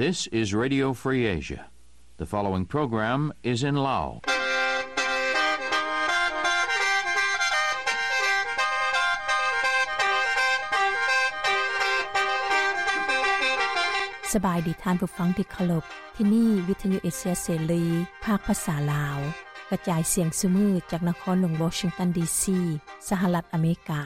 This is Radio Free Asia. The following program is in Lao. ສະບາຍດີທ່ານຜູ້ຟັງທີ່ເຄົາລົບ. ທີ່ນີ້ວິທະຍຸເອເຊຍເສລີ ພາກພາສາລາວ ກະຈາຍສຽງຊຸມື້ຈາກນະຄອນຫຼວງວໍຊິງຕັນ ດີຊີ ສະຫະລັດອາເມລິກາ.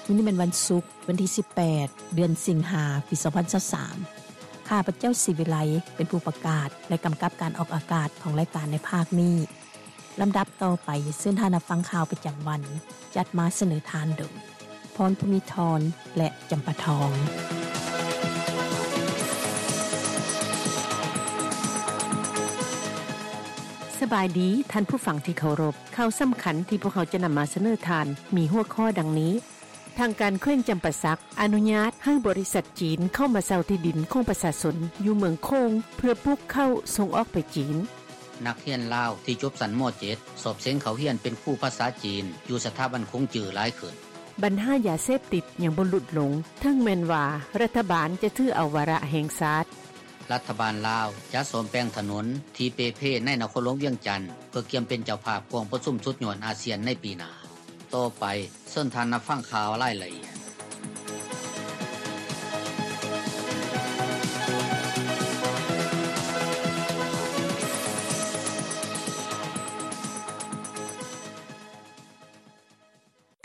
ມື້ນີ້ແມ່ນວັນສຸກ ວັນທີສິບແປດ ເດືອນສິງຫາ ປີສອງພັນຊາວສາມ. ຂ້າພະເຈົ້າ ສີວິໄລ ເປັນຜູ້ປະກາດ ແລະ ກຳກັບການອອກອາກາດຂອງລາຍການໃນພາກນີ້. ລຳດັບຕໍ່ໄປ ເຊີນທ່ານຮັບຟັງຂ່າວປະຈຳວັນ ຈັດມາສະເໜີທ່ານໂດຍ ພອນພູມີທອນ ແລະ ຈຳປາທອງ. ສະບາຍດີທ່ານຜູ້ຟັງທີ່ເຄົາລົບ. ຂ່າວສຳຄັນທີ່ພວກເຮົາຈະນຳມາສະເໜີທ່ານ ມີຫົວຂໍ້ດັ່ງນີ້. ທາງການແຂວງຈຳປາສັກ ອະນຸຍາດໃຫ້ບໍລິສັດຈີນເຂົ້າມາເຊົ່າທີ່ດິນຂອງປະຊາຊົນຢູ່ເມືອງໂຂງ ເພື່ອປູກເຂົ້າສົ່ງອອກໄປຈີນ. ນັກຮຽນລາວທີ່ຈົບຊັ້ນ ມ.ເຈັດ ສອບເສັງເຂົ້າຮຽນເປັນຄູພາສາຈີນ ຢູ່ສະຖາບັນຂົງຈື້ຫຼາຍຂຶ້ນ. ບັນຫາຢາເສບຕິດຍັງບໍ່ຫຼຸດລົງ ເຖິງແມ່ນວ່າລັດຖະບານຈະຖືເອົາວາລະແຫ່ງຊາດ. ລັດຖະບານລາວຈະສ້ອມແປງຖະໜົນທີ່ເປ່ເພໃນນະຄອນຫຼວງວຽງຈັນ ເພື່ອກຽມເປັນເຈົ້າພາບກອງປະຊຸມສຸດຍອດອາຊຽນໃນປີໜ້າ. ຕໍ່ໄປ ເຊີນທ່ານຮັບຟັງຂ່າວລາຍລະອຽດ.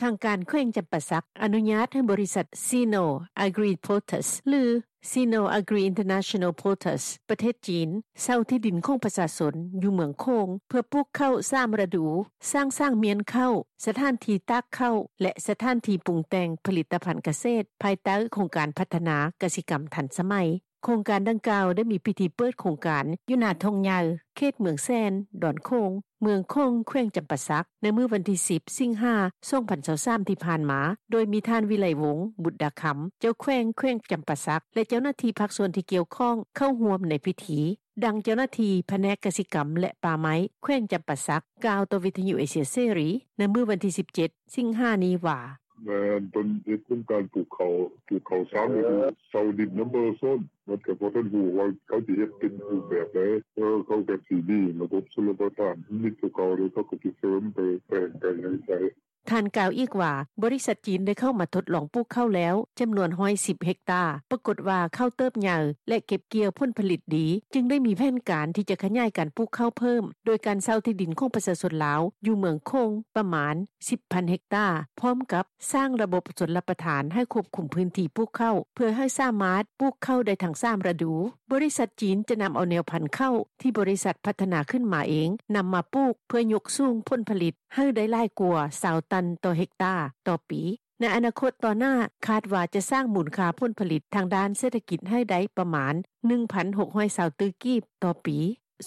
ທາງການແຂວງຈຳປາສັກ ອະນຸຍາດໃຫ້ບໍລິສັດ ຊີໂນ ອາກຣີ ໂປຣເທສ ຫຼື ຊີໂນ ອາກຣີ ອິນເຕີເນຊັນແນລ ໂປຣເທສ ປະເທດຈີນ ເຊົ່າທີ່ດິນຂອງປະຊາຊົນຢູ່ເມືອງໂຂງ ເພື່ອປູກເຂົ້າສາມລະດູ, ສ້າງສາງມ້ຽນເຂົ້າ, ສະຖານທີ່ຕາກເຂົ້າ ແລະ ສະຖານທີ່ປຸງແຕ່ງຜະລິດຕະພັນກະເສດ ພາຍໃຕ້ໂຄງການພັດທະນາກະສິກຳທັນສະໄໝ. ໂຄງການດັ່ງກ່າວໄດ້ມີພິທີເປີດໂຄງການຢູ່ໜ້າທົ່ງໃຫຍ່ ເຂດເມືອງແສນ, ດອນໂຂງ, ເມືອງໂຂງ, ແຂວງຈຳປາສັກ ໃນມື້ວັນທີສິບ ສິງຫາ ສອງພັນຊາວສາມ ທີ່ຜ່ານມາ, ໂດຍມີທ່ານ ວິໄລວົງ ບຸດດາຄຳ ເຈົ້າແຂວງແຂວງຈຳປາສັກ ແລະ ເຈົ້າໜ້າທີ່ພາກສ່ວນທີ່ກ່ຽວຂ້ອງເຂົ້າຮ່ວມໃນພິທີ. ດັ່ງເຈົ້າໜ້າທີ່ພະແນກກະສິກຳ ແລະ ປ່າໄມ້ ແຂວງຈຳປາສັກ ກ່າວຕໍ່ວິທະຍຸເອເຊຍເສລີ ໃນມື້ວັນທີສິບເຈັດ ສິງຫານີ້ວ່າ: ແມ່ນ ເພິ່ນເຮັດໂຄງການປູກເຂົ້າ ປູກເຂົ້າສາມລະດູ ເຊົ່າດິນນຳປະຊາຊົນ ມັນກໍບໍ່ທັນຮູ້ວ່າເຂົາຊິເຮັດເປັນຮູບແບບໃດ ເອີ ເຂົາກໍຊິມີລະບົບຊົນລະປະທານ ມີຕົວເກົ່າແລ້ວ ເຂົາກໍຊິເສີມໄປແປງໄປຫຍັງໄປ. ທ່ານກ່າວອີກວ່າ ບໍລິສັດຈີນໄດ້ເຂົ້າມາທົດລອງປູກເຂົ້າແລ້ວ ຈຳນວນຮ້ອຍສິບເຮັກຕາ, ປາກົດວ່າເຂົ້າເຕີບໃຫຍ່ ແລະ ເກັບກ່ຽວຜົນຜະລິດດີ, ຈຶ່ງໄດ້ມີແຜນການທີ່ຈະຂະຫຍາຍການປູກເຂົ້າເພີ່ມ ໂດຍການເຊົ່າທີ່ດິນຂອງປະຊາຊົນລາວ ຢູ່ເມືອງໂຂງ ປະມານສິບພັນເຮັກຕາ, ພ້ອມກັບສ້າງລະບົບຊົນລະປະທານໃຫ້ຄວບຄຸມພື້ນທີ່ປູກເຂົ້າ ເພື່ອໃຫ້ສາມາດປູກເຂົ້າໄດ້ທັງສາມລະດູ. ບໍລິສັດຈີນຈະນຳເອົາແນວພັນເຂົ້າທີ່ບໍລິສັດພັດທະນາຂຶ້ນມາເອງ ນຳມາປູກ ເພື່ອຍົກສູງຜົນຜະລິດໃຫ້ໄດ້ຫຼາຍກວ່າຊາວຕັນຕໍ່ເຮັກຕາຕໍ່ປີ. ໃນອະນາຄົດຕໍ່ໜ້າ ຄາດວ່າຈະສ້າງມູນຄ່າຜົນຜະລິດທາງດ້ານເສດຖະກິດໃຫ້ໄດ້ປະມານໜຶ່ງພັນຫົກຮ້ອຍຊາວຕື້ກີບຕໍ່ປີ.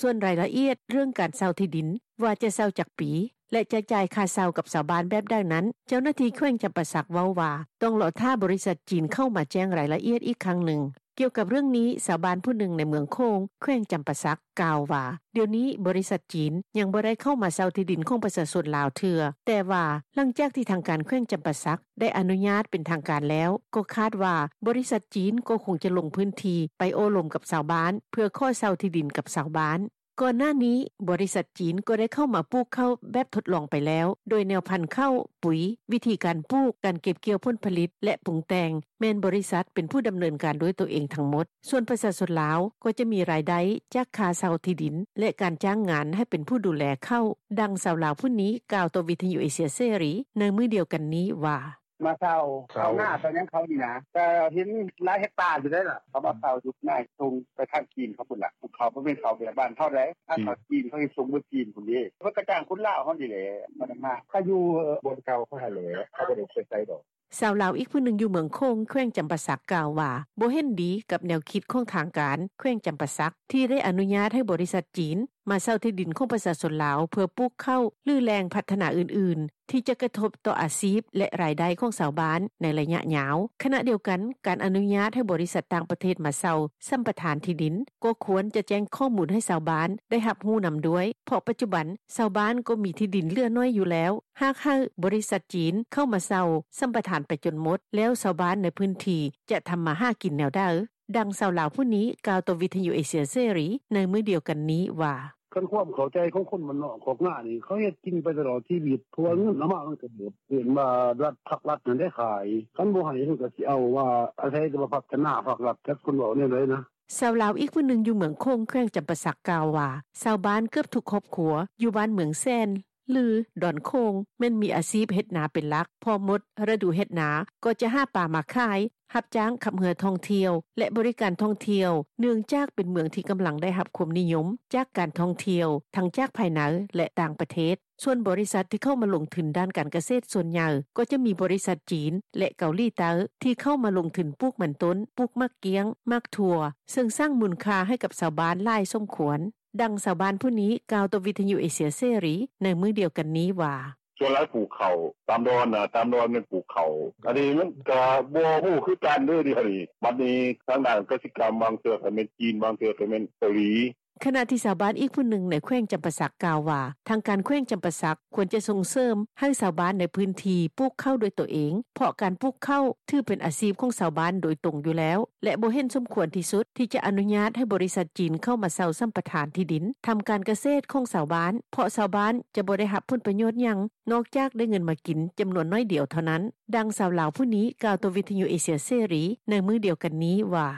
ສ່ວນລາຍລະອຽດເລື່ອງການເຊົ່າທີ່ດິນ ວ່າຈະເຊົ່າຈັກປີ ແລະ ຈະຈ່າຍຄ່າເຊົ່າກັບຊາວບ້ານແບບໃດນັ້ນ, ເຈົ້າໜ້າທີ່ແຂວງຈຳປາສັກເວົ້າວ່າ ຕ້ອງລໍຖ້າບໍລິສັດຈີນເຂົ້າມາແຈ້ງລາຍລະອຽດອີກຄັ້ງໜຶ່ງ. ກ່ຽວກັບເລື່ອງນີ້, ຊາວບ້ານຜູ້ໜຶ່ງໃນເມືອງໂຂງ ແຂວງຈຳປາສັກ ກ່າວວ່າ ດຽວນີ້ບໍລິສັດຈີນຍັງບໍ່ໄດ້ເຂົ້າມາເຊົ່າທີ່ດິນຂອງປະຊາຊົນລາວເທື່ອ, ແຕ່ວ່າຫຼັງຈາກທີ່ທາງການແຂວງຈຳປາສັກ ໄດ້ອະນຸຍາດເປັນທາງການແລ້ວ, ກໍຄາດວ່າບໍລິສັດຈີນກໍຄົງຈະລົງພື້ນທີ່ໄປໂອ້ລົມກັບຊາວບ້ານ ເພື່ອຂໍເຊົ່າທີ່ດິນກັບຊາວບ້ານ. ກ່ອນໜ້ານີ້, ບໍລິສັດຈີນກໍໄດ້ເຂົ້າມາປູກເຂົ້າແບບທົດລອງໄປແລ້ວ, ໂດຍແນວພັນເຂົ້າ, ປຸ໋ຍ, ວິທີການປູກ, ການເກັບກ່ຽວຜົນຜະລິດ ແລະ ປຸງແຕ່ງ ແມ່ນບໍລິສັດເປັນຜູ້ດຳເນີນການດ້ວຍຕົວເອງທັງໝົດ. ສ່ວນປະຊາຊົນລາວກໍຈະມີລາຍໄດ້ຈາກຄ່າເຊົ່າທີ່ດິນ ແລະ ການຈ້າງງານໃຫ້ເປັນຜູ້ດູແລເຂົ້າ. ດັ່ງຊາວລາວຜູ້ນີ້ກ່າວຕໍ່ວິທະຍຸເອເຊຍເສລີໃນມື້ດຽວກັນນີ້ວ່າ: ມາເຊົ່າ ເຊົ່າ ເຊົ່ານາ ເຊົ່າຫຍັງເຂົານີ້ນະ ກະເຫັນຫຼາຍເຮັກຕາຢູ່ໃດ໋ລະ ເຂົາມາເຊົ່າຢູ່ນາ ສົ່ງໄປທາງຈີນເຂົາພຸ້ນລະ ເຂົາບໍ່ແມ່ນເຂົ້າແບບບ້ານເຮົາໃດ໋ ທາງເຂົາຈີນເຂົາຊິສົ່ງເບິດຈີນພຸ້ນເດ້ ເຂົາກະຈ້າງຄົນລາວເຮົານີ້ແຫຼະ ມານຳມາ ເຂົາຢູ່ບ່ອນເກົ່າເຂົາຫັ້ນແຫຼະ ເຂົາບໍ່ໄດ້ໄປໃສດອກ. ຊາວລາວອີກຜູ້ໜຶ່ງຢູ່ເມືອງໂຂງ ແຂວງຈຳປາສັກ ກ່າວວ່າ ບໍ່ເຫັນດີກັບແນວຄິດຂອງທາງການແຂວງຈຳປາສັກ ທີ່ໄດ້ອະນຸຍາດໃຫ້ບໍລິສັດຈີນ ມາເຊົ່າທີ່ດິນຂອງປະຊາຊົນລາວ ເພື່ອປູກເຂົ້າ ຫຼື ແຫຼ່ງພັດທະນາອື່ນໆ ທີ່ຈະກະທົບຕໍ່ອາຊີບ ແລະ ລາຍໄດ້ຂອງຊາວບ້ານ ໃນໄລຍະຍາວ. ຂະນະດຽວກັນ, ການອະນຸຍາດໃຫ້ບໍລິສັດຕ່າງປະເທດມາເຊົ່າສຳປະທານທີ່ດິນ ກໍຄວນຈະແຈ້ງຂໍ້ມູນໃຫ້ຊາວບ້ານໄດ້ຮັບຮູ້ນຳດ້ວຍ ເພາະປັດຈຸບັນຊາວບ້ານກໍມີທີ່ດິນເຫຼືອໜ້ອຍຢູ່ແລ້ວ. ຫາກໃຫ້ບໍລິສັດຈີນເຂົ້າມາເຊົ່າສຳປະທານໄປຈົນໝົດ ແລ້ວຊາວບ້ານໃນພື້ນທີ່ຈະທຳມາຫາກິນແນວໃດ? ດັ່ງຊາວລາວຜູ້ນີ້ກ່າວຕໍ່ວິທຍຸເອເຊຍເສລີໃນມື້ດຽວກັນນີ້ວ່າ: ຄັນຄວາມເຂົ້າໃຈຂອງຄົນບ້ານນອກຄອກນານີ້ ເຂົາເຮັດກິນໄປຕະຫຼອດຊີວິດ ເພາະວ່າເງິນເອົາມາມັນກໍເບິດ ເອີ້ນວ່າລັດ ພັກລັດຫັ້ນໄດ້ຂາຍ ຄັນບໍ່ໃຫ້ເພິ່ນກໍຊິເອົາວ່າ ອາໄສແຕ່ວ່າພັດທະນາ ພັກລັດ ຈັກເພິ່ນເວົ້າແນວໃດນະ. ຊາວລາວອີກຜູ້ໜຶ່ງຢູ່ເມືອງໂຂງ ແຂວງຈຳປາສັກ ກ່າວວ່າ ຊາວບ້ານເກືອບທຸກຄອບຄົວຢູ່ບ້ານເມືອງແສນ ຫຼື ດອນໂຂງ ແມ່ນມີອາຊີບເຮັດນາເປັນຫຼັກ ພໍໝົດລະດູເຮັດນາກໍຈະຫາປາມາຂາຍ, ຮັບຈ້າງຂັບເຮືອທ່ອງທ່ຽວ ແລະ ບໍລິການທ່ອງທ່ຽວ ເນື່ອງຈາກເປັນເມືອງທີ່ກຳລັງໄດ້ຮັບຄວາມນິຍົມຈາກການທ່ອງທ່ຽວ ທັງຈາກພາຍໃນ ແລະ ຕ່າງປະເທດ. ສ່ວນບໍລິສັດທີ່ເຂົ້າມາລົງທຶນດ້ານການກະເສດສ່ວນໃຫຍ່ ກໍຈະມີບໍລິສັດຈີນ ແລະ ເກົາຫຼີໃຕ້ ທີ່ເຂົ້າມາລົງທຶນປູກມັນຕົ້ນ, ປູກໝາກກ້ຽງ, ໝາກຖົ່ວ ເຊິ່ງສ້າງມູນຄ່າໃຫ້ກັບຊາວບ້ານຫຼາຍສົມຄວນ. ດັ່ງຊາວບ້ານຜູ້ນີ້ກ່າວຕໍ່ວິທຍຸເອເຊຍເສລີໃນມື້ດຽວກັນນີ້ວ່າ: ສ່ວນຫຼາຍປູກເຂົ້າຕາມດອນນະ ຕາມດອນແມ່ນປູກເຂົ້າ ອັນນີ້ມັນກະບໍ່ຮູ້ຄືກັນເດີ້ ດຽວນີ້ ບັດນີ້ທາງດ້ານກະສິກຳ ບາງເທື່ອກໍແມ່ນຈີນ ບາງເທື່ອກໍແມ່ນເກົາຫຼີ. ຂະນະທີ່ຊາວບ້ານອີກຜູ້ໜຶ່ງໃນແຂວງຈຳປາສັກກ່າວວ່າ ທາງການແຂວງຈຳປາສັກຄວນຈະສົ່ງເສີມໃຫ້ຊາວບ້ານໃນພື້ນທີ່ປູກເຂົ້າດ້ວຍຕົວເອງ ເພາະການປູກເຂົ້າຖືເປັນອາຊີບຂອງຊາວບ້ານໂດຍຕົງຢູ່ແລ້ວ ແລະ ບໍ່ເຫັນສົມຄວນທີ່ສຸດທີ່ຈະອະນຸຍາດໃຫ້ບໍລິສັດຈີນເຂົ້າມາເຊົ່າສຳປະທານທີ່ດິນທຳການກະເສດຂອງຊາວບ້ານ ເພາະຊາວບ້ານຈະບໍ່ໄດ້ຮັບຜົນປະໂຫຍດຫຍັງ ນອກຈາກໄດ້ເງິນມາກິນຈຳນວນໜ້ອຍດຽວເທົ່ານັ້ນ. ດັ່ງຊາວລາວຜູ້ນີ້ກ່າວຕໍ່ວິທຍຸເອເຊຍເສລີໃນມື້ດຽວກັນນີ້ວ່າ: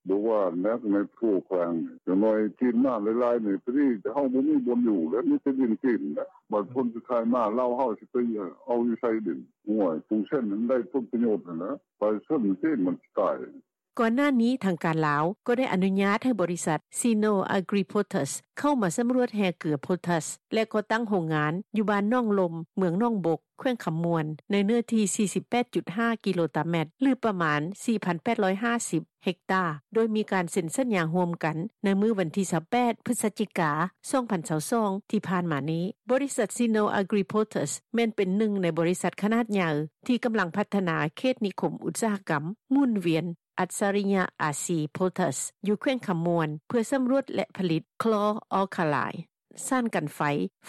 ບໍ່ວ່າແນວໃນໂພແຂວງ ຢ່າງໜ້ອຍຈີນມາຫຼາຍໆນີ້ ພໍດີເຮົາບໍ່ມີບ່ອນຢູ່ແລ້ວ ມີແຕ່ດິນຈີນແຫຼະ ບາດຜົນສຸດທ້າຍມາລາວເຮົາຊິໄປເອົາຢູ່ໃສດິນ ໂອ້ຍ ປູເຊັນຫັ້ນໄດ້ຜົນປະໂຫຍດຫັ້ນແຫຼະ ປະຊາຊົນຈີນມັນຊິຕາຍ. ກ່ອນໜ້ານີ້ທາງການລາວກໍໄດ້ອະນຸຍາດໃຫ້ບໍລິສັດ Sino Agri Potash ເຂົ້າມາສຳຫຼວດແຮ່ເກືອໂພແທສ ແລະ ກໍ່ຕັ້ງໂຮງງານຢູ່ບ້ານໜອງລົມ ເມືອງໜອງບົກ ແຂວງຄຳມ່ວນ ໃນເນື້ອທີ່ສີ່ສິບແປດຈຸດຫ້າກິໂລຕາແມັດ ຫຼື ປະມານສີ່ພັນແປດຮ້ອຍຫ້າສິບເຮັກຕາ ໂດຍມີການເຊັນສັນຍາຮ່ວມກັນໃນມື້ວັນທີຊາວແປດ ພຶສຈິກາ ສອງພັນຊາວສອງ ທີ່ຜ່ານມານີ້. ບໍລິສັດ Sino Agri Potash ແມ່ນເປັນໜຶ່ງໃນບໍລິສັດຂະໜາດໃຫຍ່ທີ່ກຳລັງພັດທະນາເຂດນິຄົມອຸດສາຫະກຳໝູນວຽນ ອັດສະລິຍະອາຊີໂພແທສ ຢູ່ແຂວງຄຳມ່ວນ ເພື່ອສຳຫຼວດ ແລະ ຜະລິດຄລໍອອລຄາໄລ ສານກັນໄຟ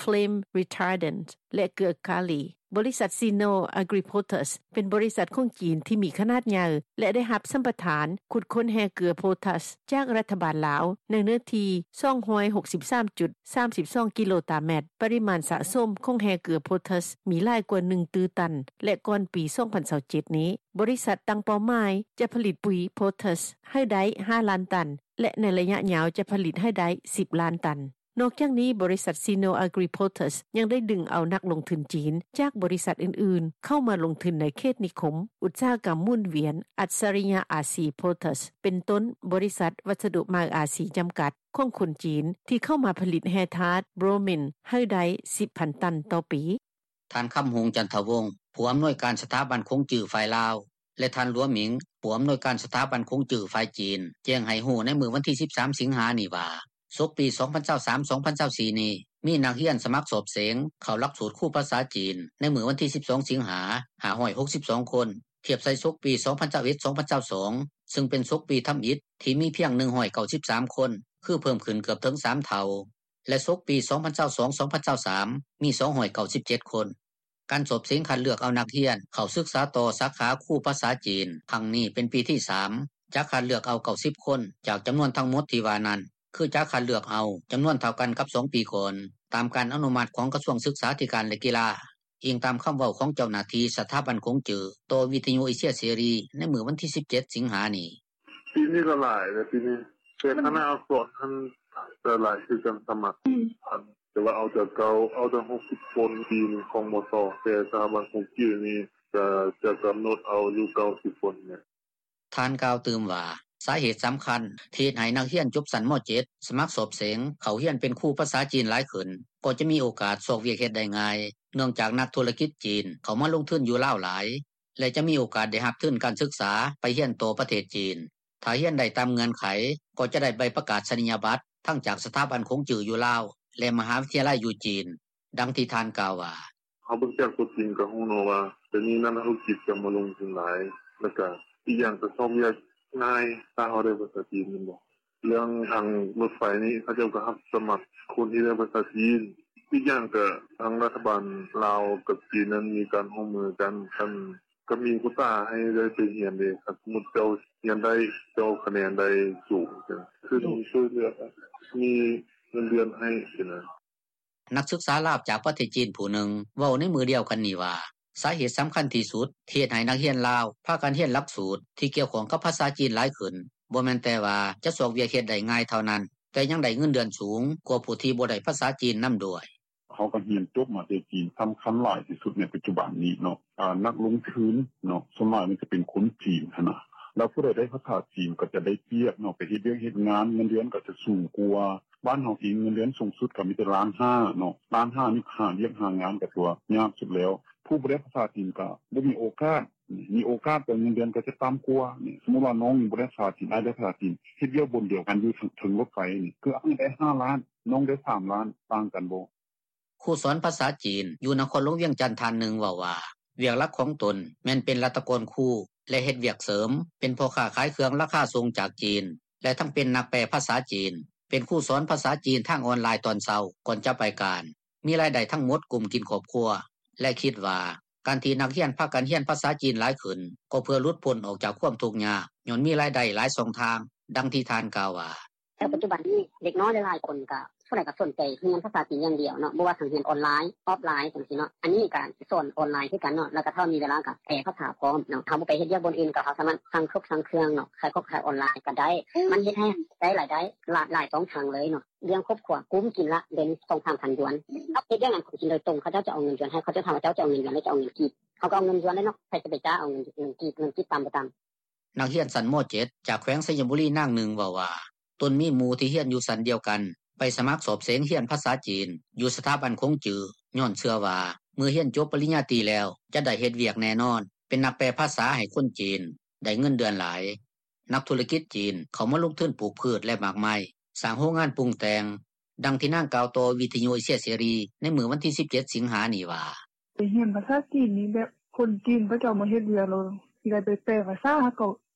Flame Retardant ແລະ ເກືອກາລີ. ບໍລິສັດ Sino Agri Potash ເປັນບໍລິສັດຂອງຈີນທີ່ມີຂະໜາດໃຫຍ່ ແລະ ໄດ້ຮັບສຳປະທານຂຸດຄົ້ນແຮ່ເກືອໂພແທສຈາກລັດຖະບານລາວ ໃນເນື້ອທີ່ສອງຮ້ອຍຫົກສິບສາມຈຸດສາມສິບສອງກິໂລຕາແມັດ. ປະລິມານສະສົມຂອງແຮ່ເກືອໂພແທສມີຫຼາຍກວ່າໜຶ່ງຕື້ຕັນ ແລະ ກ່ອນປີສອງພັນຊາວເຈັດນີ້ ບໍລິສັດຕັ້ງເປົ້າໝາຍຈະຜະລິດປຸຍໂພແທສໃຫ້ໄດ້ຫ້າລ້ານຕັນ ແລະ ໃນໄລຍະຍາວຈະຜະລິດໃຫ້ໄດ້ສິບລ້ານຕັນ. ນອກຈາກນີ້, ບໍລິສັດ Sino Agri Potash ຍັງໄດ້ດຶງເອົານັກລົງທຶນຈີນຈາກບໍລິສັດອື່ນໆ ເຂົ້າມາລົງທຶນໃນເຂດນິຄົມອຸດສາຫະກຳໝູນວຽນ ອັດສະລິຍະອາຊີໂພແທສ ເປັນຕົ້ນ ບໍລິສັດວັດສະດຸມະຫາອາຊີຈຳກັດ ຂອງຄົນຈີນ ທີ່ເຂົ້າມາຜະລິດແຮ່ທາດໂບຣມິນໃຫ້ໄດ້ສິບພັນຕັນຕໍ່ປີ. ທ່ານ ຄຳຮຸ່ງ ຈັນທະວົງ ຜູ້ອຳນວຍການສະຖາບັນຂົງຈື້ຝ່າຍລາວ ແລະ ທ່ານ ຫຼວງ ໝິງ ຜູ້ອຳນວຍການສະຖາບັນຂົງຈື້ຝ່າຍຈີນ ແຈ້ງໃຫ້ຮູ້ໃນມື້ວັນທີສິບສາມ ສິງຫານີ້ວ່າ ສົກປີສອງພັນຊາວສາມ ສອງພັນຊາວສີ່ນີ້ ມີນັກຮຽນສະໝັກສອບເສັງເຂົ້າຫຼັກສູດຄູພາສາຈີນ ໃນມື້ວັນທີສິບສອງ ສິງຫາ ຫ້າຮ້ອຍຫົກສິບສອງຄົນ ທຽບໃສ່ສົກປີສອງພັນຊາວເອັດ ສອງພັນຊາວສອງ ຊຶ່ງເປັນສົກປີທຳອິດທີ່ມີພຽງໜຶ່ງຮ້ອຍເກົ້າສິບສາມຄົນ ຄືເພີ່ມຂຶ້ນເກືອບເຖິງສາມເທົ່າ. ແລະ ສົກປີສອງພັນຊາວສອງ ສອງພັນຊາວສາມ ມີສອງຮ້ອຍເກົ້າສິບເຈັດຄົນ. ການສອບເສັງຄັດເລືອກເອົານັກຮຽນເຂົ້າສຶກສາຕໍ່ສາຂາຄູພາສາຈີນຄັ້ງນີ້ເປັນປີທີສາມ ຈະຄັດເລືອກເອົາເກົ້າສິບຄົນ ຈາກຈຳນວນທັງໝົດທີ່ວ່ານັ້ນ ຄືຈະຄັດເລືອກເອົາຈຳນວນເທົ່າກັນກັບສອງປີກ່ອນ ຕາມການອະນຸມັດຂອງກະຊວງສຶກສາທິການ ແລະ ກິລາ, ອີງຕາມຄຳເວົ້າຂອງເຈົ້າໜ້າທີ່ສະຖາບັນຂົງຈື້ ຕໍ່ວິທຍຸເອເຊຍເສລີໃນມື້ວັນທີສິບເຈັດ ສິງຫານີ້. ປີນີ້ກໍຫຼາຍເດ້ ປີນີ້ ແຕ່ຄະນະອັກສອນຫັ້ນກໍຫຼາຍຄືກັນ ສະໝັກ ອັນ ແຕ່ວ່າເອົາຈາກເກົ່າ ເອົາຕັ້ງຫົກສິບຄົນ ປີນີ້ຂອງ ມສ ແຕ່ສະຖາບັນຂົງຈື້ນີ້ກໍຈະກຳນົດເອົາຢູ່ເກົ້າສິບຄົນແມ່ນ. ທ່ານກ່າວຕື່ມວ່າ ສາເຫດສຳຄັນທີ່ເຮັດໃຫ້ນັກຮຽນຈົບຊັ້ນ ມ.ເຈັດ ສະໝັກສອບເສັງເຂົ້າຮຽນເປັນຄູພາສາຈີນຫຼາຍຂຶ້ນ ກໍຈະມີໂອກາດຊອກວຽກເຮັດໄດ້ງ່າຍ ເນື່ອງຈາກນັກທຸລະກິດຈີນເຂົ້າມາລົງທຶນຢູ່ລາວຫຼາຍ ແລະ ຈະມີໂອກາດໄດ້ຮັບທຶນການສຶກສາໄປຮຽນຕໍ່ປະເທດຈີນ. ຖ້າຮຽນໄດ້ຕາມເງື່ອນໄຂ ກໍຈະໄດ້ໃບປະກາສະນີຍະບັດທັງຈາກສະຖາບັນຂົງຈື້ຢູ່ລາວ ແລະມະຫາວິທະຍາໄລຢູ່ຈີນ. ດັ່ງທີ່ທ່ານກ່າວວ່າ: “ເຮົາເບິ່ງຈາກຕົວຈິງກໍຮູ້ເນາະວ່າ ດຽວນີ້ນັກທຸລະກິດກໍມາລົງທຶນຫຼາຍ ແລ້ວກໍອີກຢ່າງກໍຊອກວຽກງ່າຍ ຖ້າເຮົາໄດ້ພາສາຈີນແມ່ນບໍ່. ເລື່ອງທາງລົດໄຟນີ້ ເຂົາເຈົ້າກໍຮັບສະໝັກຄົນທີ່ໄດ້ພາສາຈີນ. ອີກຢ່າງກໍທາງລັດຖະບານລາວກັບຈີນນັ້ນມີການຮ່ວມມືກັນ ຄັນ ກໍມີໂຄຕ້າໃຫ້ໄດ້ໄປຮຽນເດ້. ຄັນສົມມຸດເຈົ້າຮຽນໄດ້ ເຈົ້າຄະແນນໄດ້ສູງ ເພິ່ນຊ່ວຍເຫຼືອ ມີເງິນເດືອນໃຫ້ຊີ້ນະ.” ນັກສຶກສາລາວຈາກປະເທດຈີນຜູ້ໜຶ່ງ ເວົ້າໃນມື້ດຽວກັນນີ້ວ່າ ສາເຫດສຳຄັນທີ່ສຸດທີ່ເຮັດໃຫ້ນັກຮຽນລາວ ພາກັນຮຽນຫຼັກສູດທີ່ກ່ຽວຂ້ອງກັບພາສາຈີນຫຼາຍຂຶ້ນ ບໍ່ແມ່ນແຕ່ວ່າຈະຊອກວຽກເຮັດໄດ້ງ່າຍເທົ່ານັ້ນ, ແຕ່ຍັງໄດ້ເງິນເດືອນສູງກວ່າຜູ້ທີ່ບໍ່ໄດ້ພາສາຈີນນຳດ້ວຍ. “ເຮົາກໍຮຽນຈົບມາແຕ່ຈີນ ສຳຄັນຫຼາຍທີ່ສຸດໃນປັດຈຸບັນນີ້ເນາະ ອາ ນັກລົງທຶນເນາະ ສ່ວນຫຼາຍມັນຈະເປັນຄົນຈີນຫັ້ນນະ ແລ້ວຜູ້ໃດໄດ້ພາສາຈີນກໍຈະໄດ້ປຽບເນາະ ໄປເຮັດວຽກເຮັດງານ ເງິນເດືອນກໍຈະສູງກວ່າ. ບ້ານເຮົາເອງເງິນເດືອນສູງສຸດກໍມີແຕ່ລ້ານຫ້າເນາະ ລ້ານຫ້ານີ້ຫາວຽກຫາງານກໍຖືວ່າຍາກສຸດແລ້ວ. ຜູ້ບໍ່ໄດ້ພາສາຈີນກໍບໍ່ມີໂອກາດ ມີໂອກາດກໍເງິນເດືອນກໍຈະຕ່ຳກວ່າ. ສົມມຸດວ່ານ້ອງບໍ່ໄດ້ພາສາຈີນ ອ້າຍໄດ້ພາສາຈີນ ເຮັດວຽກບ່ອນດຽວກັນຢູ່ເທິງລົດໄຟນີ້ ຄືອ້າຍໄດ້ຫ້າລ້ານ ນ້ອງໄດ້ສາມລ້ານ ຕ່າງກັນບໍ່.” ຄູສອນພາສາຈີນຢູ່ນະຄອນຫຼວງວຽງຈັນທ່ານໜຶ່ງເວົ້າວ່າ ວຽກຫຼັກຂອງຕົນແມ່ນເປັນລັດຖະກອນຄູ ແລະເຮັດວຽກເສີມເປັນພໍ່ຄ້າຂາຍເຄື່ອງລາຄາສົ່ງຈາກຈີນ ແລະທັງເປັນນັກແປພາສາຈີນ, ເປັນຄູສອນພາສາຈີນທາງອອນລາຍຕອນເຊົ້າກ່ອນຈະໄປການ, ມີລາຍໄດ້ທັງໝົດກຸ້ມກິນຄອບຄົວ ແລະຄິດວ່າການທີ່ນັກຮຽນພາກັນຮຽນພາສາຈີນຫຼາຍຂຶ້ນ ກໍເພື່ອຫຼຸດພົ້ນອອກຈາກຄວາມທຸກຍາກ ຍ້ອນມີລາຍໄດ້ຫຼາຍຊ່ອງທາງ. ດັ່ງທີ່ທ່ານກ່າວວ່າ: “ແຕ່ປັດຈຸບັນນີ້ເດັກນ້ອຍຫຼາຍໆຄົນກໍ ສ່ວນຫຼາຍກໍສົນໃຈຮຽນພາສາຈີນຢ່າງດຽວເນາະ ບໍ່ວ່າທັງຮຽນອອນລາຍ ອອຟລາຍຈັ່ງຊີ້ເນາະ. ອັນນີ້ກໍສອນອອນລາຍຄືກັນເນາະ ແລ້ວກໍຖ້າມີເວລາກໍແປພາສາພ້ອມເນາະ. ເຮົາບໍ່ໄປເຮັດວຽກບ່ອນອື່ນ ກໍເຮົາສາມາດສັ່ງເຄື່ອງສັ່ງຂອງເນາະ ຂາຍຂອງຂາຍອອນລາຍກໍໄດ້. ມັນເຮັດໃຫ້ໄດ້ລາຍໄດ້ຫຼາຍ ຫຼາຍຊ່ອງທາງເລີຍເນາະ. ລ້ຽງຄອບຄົວ ກຸ້ມກິນລະເດືອນໜຶ່ງ ສອງສາມພັນຢວນ. ເຮົາເຮັດວຽກງານຂອງຈີນໂດຍຕົງ ເຂົາເຈົ້າຈະເອົາເງິນຢວນໃຫ້ ເຂົາເຈົ້າຖາມວ່າ ເຈົ້າຈະເອົາເງິນຢວນ ຫຼື ຈະເອົາເງິນກີບ? ເຂົາກໍເອົາເງິນຢວນແຫຼະເນາະ ໃຜຈະໄປກ້າເອົາເງິນ ເງິນກີບ ເງິນກີບຕ່ຳບໍ່ຕ່ຳ.” ນັກຮຽນຊັ້ນ ມ.ເຈັດ ຈາກແຂວງໄຊຍະບູລີນາງໜຶ່ງເວົ້າວ່າ ຕົນມີໝູ່ທີ່ຮຽນຢູ່ຊັ້ນດຽວກັນ ໄປສະໝັກສອບເສັງຮຽນພາສາຈີນ ຢູ່ສະຖາບັນຂົງຈື້ ຍ້ອນເຊື່ອວ່າເມື່ອຮຽນຈົບປະລິນຍາຕີແລ້ວ ຈະໄດ້ເຮັດວຽກແນ່ນອນ ເປັນນັກແປພາສາໃຫ້ຄົນຈີນ ໄດ້ເງິນເດືອນຫຼາຍ. ນັກທຸລະກິດຈີນເຂົ້າມາລົງທຶນປູກພືດ ແລະໝາກໄມ້, ສ້າງໂຮງງານປຸງແຕ່ງ. ດັ່ງທີ່ນາງກ່າວຕໍ່ວິທະຍຸເອເຊຍເສລີໃນມື້ວັນທີສິບເຈັດ ສິງຫານີ້ວ່າ: “ໄປຮຽນພາສາຈີນນີ້ແບບຄົນຈີນເຂົາເຈົ້າມາເຮັດວຽກ ແລ້ວຊິໄດ້ໄປແປພາສາ ເຮົາກໍ